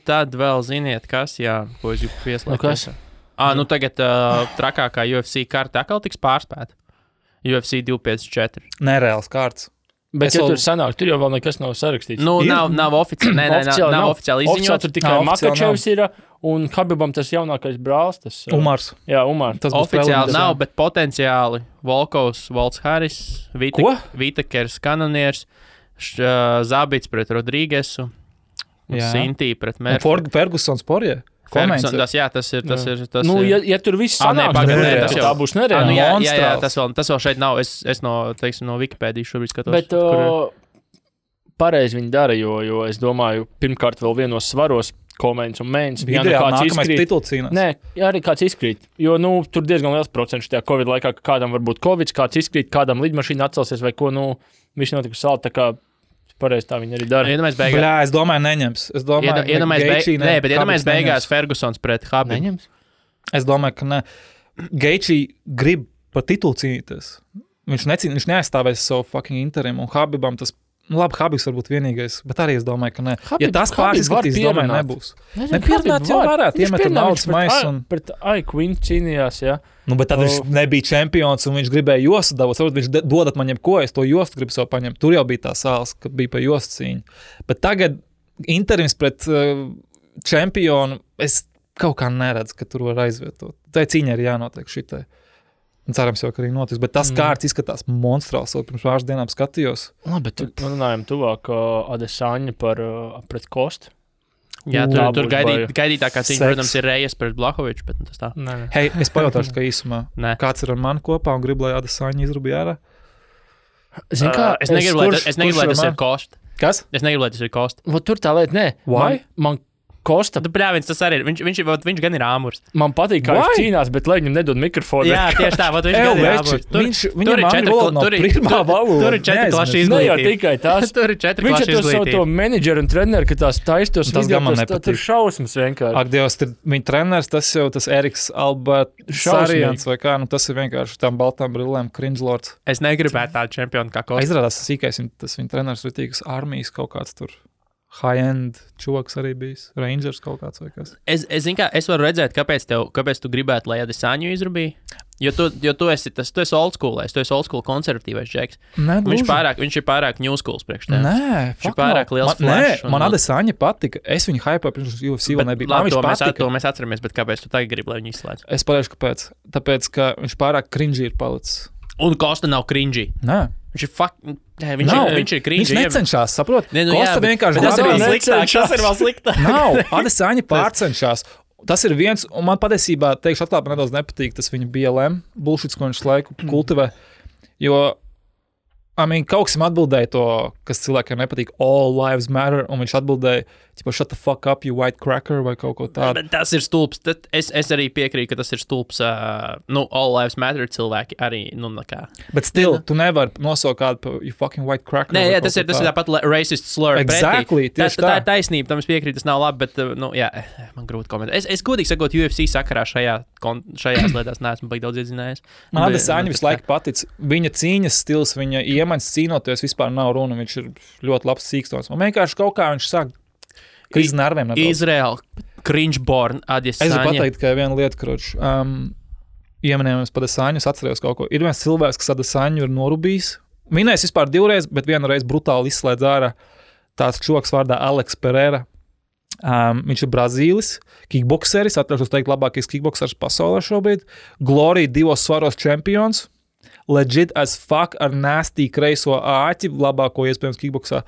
Tad vēl ziniet, kas, ko es gribu pieslēgt. Nu tagad trakākā UFC karta atkal tiks pārspēta. UFC 254. Nereāls kārts. Bet tur sanāk, tur jau vēl nekas nav sarakstīts. Nu, nav oficiāli. Nav oficiāli izziņots. Tur tikai Makačevs ir un Habibam tas jaunākais brālis. Umars. Jā, Umars. Tas oficiāli nav, bet potenciāli Volkovs, Volts Harris, Vitakers, Kanonieris, Zabits pret Rodrīgesu, Sintī pret Mērfu. Fergusons Porje. Tas ir. Nu, ja tur viss sanāk, tā būs nereāli. Tas vēl šeit nav. Es no Wikipēdijas šobrīd skatos. Bet pareizi viņi dara, jo es domāju, pirmkārt vēl vienos svaros Komeins un Mēns. Video nākamais tituls cīnās. Nē, arī kāds izkrīt. Jo, tur diezgan liels procents tajā Covid laikā, ka kādam var būt Covid, kāds izkrīt, kādam lidmašīna atcelsies vai ko, viss notika salta, tā kā pareizi tā viņi arī dara. Bļā, es domāju, neņems. Iedomājies beigās Fergusons pret Habibu. Neņems? Es domāju, ka ne. Geičī grib par titulu cīnīties. Viņš neaizstāvēs savu fucking interim, un Habibam tas, labi, Habibs varbūt vienīgais, bet arī es domāju, ka ne. Ja tas pārskatīs, domāju, nebūs. Nepierunāt jau varētu, iemet naudas maisu un... Pret Quinn cīnījās, jā. Nu, bet tad viņš nebija čempions un viņš gribēja jostu dabūt. Varbūt viņš dodat man jebko, es to jostu gribu sev paņemt. Tur jau bija tā sāls, kad bija pa jostu cīņu. Bet tagad interims pret čempionu, es kaut kā neredzu, ka tur var aizvietot. Tā cīņa ir jānotiek šitai. Un cerams jau, ka arī notiks. Bet tas kārts izskatās monstrāls. Pirms pāris dienām skatījos. Bet runājam tuvāk Adesanya pret Kostu. Jā, tur gaidītākā cīņa, protams, ir Rejas pret Blahoviču, bet tas tā. Hei, es pajautāšu, ka īsumā. Kāds ir ar mani kopā un gribu, lai Adesanya izrubīja ārā? Es negribu, lai tas ir Kost. Kas? Es negribu, lai tas ir Kost. Tur tā lieta, nē. Why? Man Kosta. Bļāvins, tas arī ir. Viņš gan ir āmurs. Man patīk, kā viņš cīnās, bet lai viņam nedod mikrofonu. Jā, tieši tā, viņš gan ir āmurs. Tur ir 4 klašu izglītība. Ne jau tikai tās. Tur ir 4 klašu izglītība. Viņš ir izglītība. to menedžeru un treneru, ka tās taistos. Tas gan man nepatīk. Tur šausmas vienkārši. Ak, Dievs, viņa treneris, tas jau tas Eriks Albertsarians vai kā, tas ir vienkārši tām baltām brillēm cringe-lords. Es negribētu tādu čempionu kā Kosta. Izrādās, tas viņa treneris ir tīkas armijas kaut kāds tur. High-end čoks arī bijis. Rangers kaut kāds vai kas. Es varu redzēt, kāpēc tu gribētu, lai Adesanju izrubīja. Jo tu esi old school, tu esi old school konservatīvais džeks. Viņš ir pārāk new schools priekš tev. Nē, viņš ir pārāk liels flash. Man Adesanya patika. Es viņu hypēju pirms UFC vēl nebija. To mēs atceramies, bet kāpēc tu tagad gribi, lai viņu izslēdz? Es pateikšu, kāpēc. Tāpēc, ka viņš pārāk cringy ir palicis. Un Kosta nav cringy. Nē. Viņš ir cringy. Viņš necenšas, saprot? Kosta vienkārši tas ir vēl sliktāk. Nav. Adesanya pārcenšas. Tas ir viens, un man patiesībā, teikšu atklāt, man nedaudz nepatīk tas viņa BLM bullshits, ko viņš laiku kultivē, jo kaut kas atbildēja to, kas cilvēkiem nepatīk, all lives matter, un viņš atbildēja, shut the fuck up, you white cracker, vai kaut ko tādu. Bet tas ir stulbs. Es arī piekrītu, ka tas ir stulbs. All lives matter cilvēki arī, nekā. Bet still, tu nevari nosaukt kādu par you fucking white cracker. Nē, tas ir tāpat racist slur. Exactly, tieši tā ir taisnība, tam es piekrītu, tas nav labi, bet, man grūti komentēt. Es godīgi sakot, UFC sakarā šajās lietās neesmu baigi daudz iedzinājies. Man Adesanya visu laiku patic. Viņa cīņas stils, viņa iemaņas cīnoties vispār nav runa, viņš ir ļoti labs cīkstons. Man vienkārši kaut kā viņš sāk krīz nerviem. Izraēla. Cringe-born Adesanya. Es gribu pateikt, ka viena lieta, kroč, ieminējamies par Adesanyu, es atcerējos kaut ko. Ir viens cilvēks, kas Adesanyu ir norubījis. Minējis vispār 2 reizes, bet vienu reizi brutāli izslēdz ārā tāds čoks vārdā Alex Pereira. Viņš ir Brazīlis, kickbokseris, atļaušos teikt labākais kickboksers pasaulē šobrīd. Glory 2 svaros čempions. Legit as fuck ar nasty kreiso āķi, labāko iespējams kickboksā.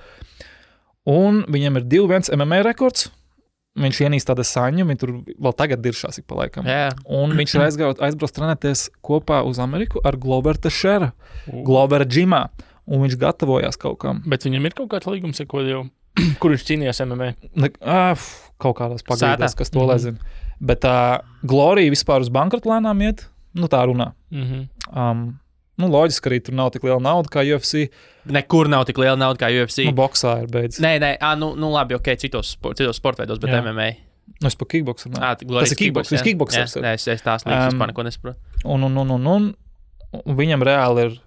Un viņam ir 2-1 MMA rekords. Viņš ienīst Adesanyu, viņi tur vēl tagad diršās ik pa laikam. Yeah. Un viņš ir aizbrauc trenēties kopā uz Ameriku ar Glover Teixeira, Glover džimā. Un viņš gatavojās kaut kam. Bet viņam ir kaut kāds līgums, kur viņš cīnījās MMA? Kaut kādās pagaidās, kas to lezina. Bet Glory vispār uz bankrotu lēnām iet, tā runā. Loģiski arī tur nav tik liela nauda kā UFC. Nekur nav tik liela nauda kā UFC. Boksā ir beidzis. Nē, labi, ok, citos sportveidos, bet MMA. Es par kickboksu. Tas ir kickboks. Kickboksers. Nē, es tās līdz vispār neko nesaprotu. Un viņam reāli ir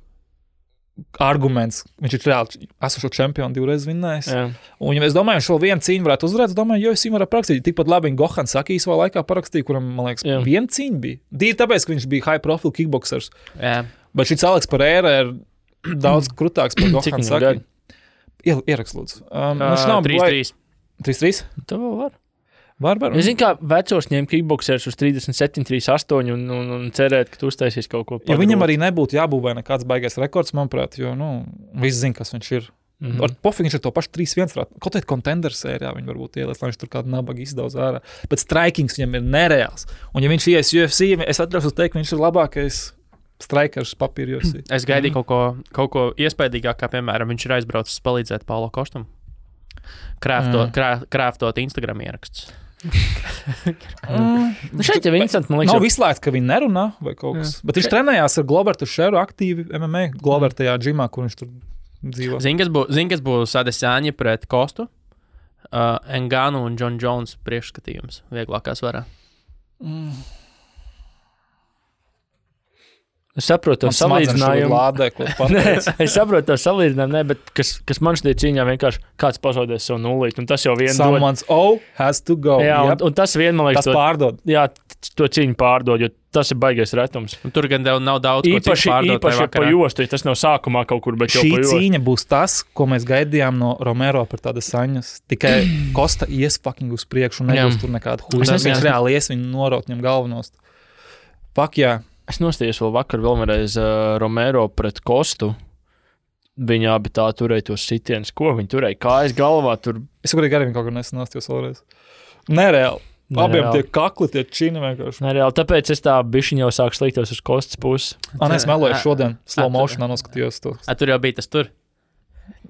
arguments. Viņš ir reāli esošo čempionu 2 reizes vinnējis. Un ja es domāju, šo vienu cīņu varētu uzvarēt, es domāju, UFC varētu parakstīt. Tikpat labi viņa Gohan Saki savā laikā parakstīja, kuram, man liekas, viena cīņa bija. Dīri tāpēc, ka viņš bija high profile kickboksers. Bet šis Alex Pereira ir daudz krutāks par Gohan Saki. Ierakst, lūdzu. 3-3. 3-3? Tā vēl var. Var. Es zinu, kā vecos ņem kickboksers uz 37, 38 un cerēt, ka tu uztaisīs kaut ko. Ja viņam arī nebūtu jābūvē nekāds baigais rekords, manuprāt, jo, visi zina, kas viņš ir. Ar pofīgi viņš ir to pašu 3-1. Kaut kādā contender sērijā viņi varbūt ielēs, lai viņš tur kādu nabagu izdauz ārā. Bet strikings viņam ir nereāls. Un ja viņš ies UFC, es atļaušos teikt, ka viņš ir labākais strikers papīra UFC. Es gaidīju kaut ko iespaidīgāk, kā piemēram viņš ir aizbraucis palīdzēt Paulo Kostam. Krāftot Instagram ierakstus. Šeit jau interesanti, man liekas. Nav izslēgts, ka viņi nerunā vai kaut kas. Bet viņš trenējās ar Glover Teixeiru aktīvi MMA. Glover tajā džimā, kur viņš tur dzīvo. Zini, kas būs Adesanya pret Kostu? Ngannou un John Jones priekšskatījums vieglākā svarā. Es saprotu to salīdzinājumu. Es saprotu to salīdzinājumu, bet kas man šķiet cīņā vienkārši kāds pazaudēs savu nulīti, un tas jau vien Someone's has to go. Jā, un tas vien, man liekas, tas pārdod. Jā, to cīņu pārdod, jo tas ir baigais retums. Un tur gan nav daudz, ko cīņu pārdot. Īpaši pa jostu, tas nav sākumā kaut kur, bet jau pa jostu. Šī cīņa būs tas, ko mēs gaidījām no Romero par tādas saņas. Tikai Kosta ies fucking uz priekšu un nebūs tur nekāda huļa. Viņš reāli ies viņu noraut viņam galvenost. Fuck, jā. Es nostājos vēl vakar vēlreiz Romero pret Kostu. Viņa abi tā turēja tos sitienus. Ko viņi turēja? Kājas galvā tur. Es arī viņu kaut kur nesanostījos vēlreiz. Nereāli. Abiem tie kakli, tie čini vienkārši. Nereāli. Tāpēc es tā bišķiņ jau sāku sliktos uz Kostas puses. Es meloju šodien. Slow motionā noskatījos to. Tur jau bija tas tur.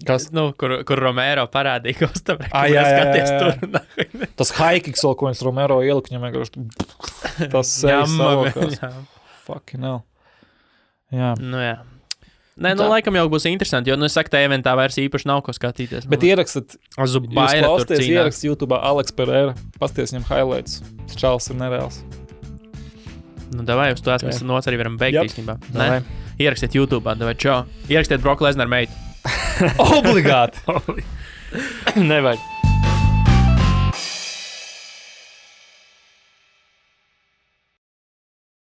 Kas? Kur Romero parādīja Kostam. Jā. Tas high kicks, ko viņš Romero ielika, viņam vienkārši tas savokās. Fucking hell. Jā. Jā. Nē, laikam jau būs interesanti, jo, es saku, tā eventā vairs īpaši nav ko skatīties. Bet ierakstat, ierakst YouTube Alex Pereira, pasties viņam highlights. Čāls ir nereāls. Davai, uz to mēs noc arī varam beigt īstenībā. Ierakstiet YouTube, davai, čau. Ierakstiet Brock Lesnar meitu. Obligāti. Nevajag.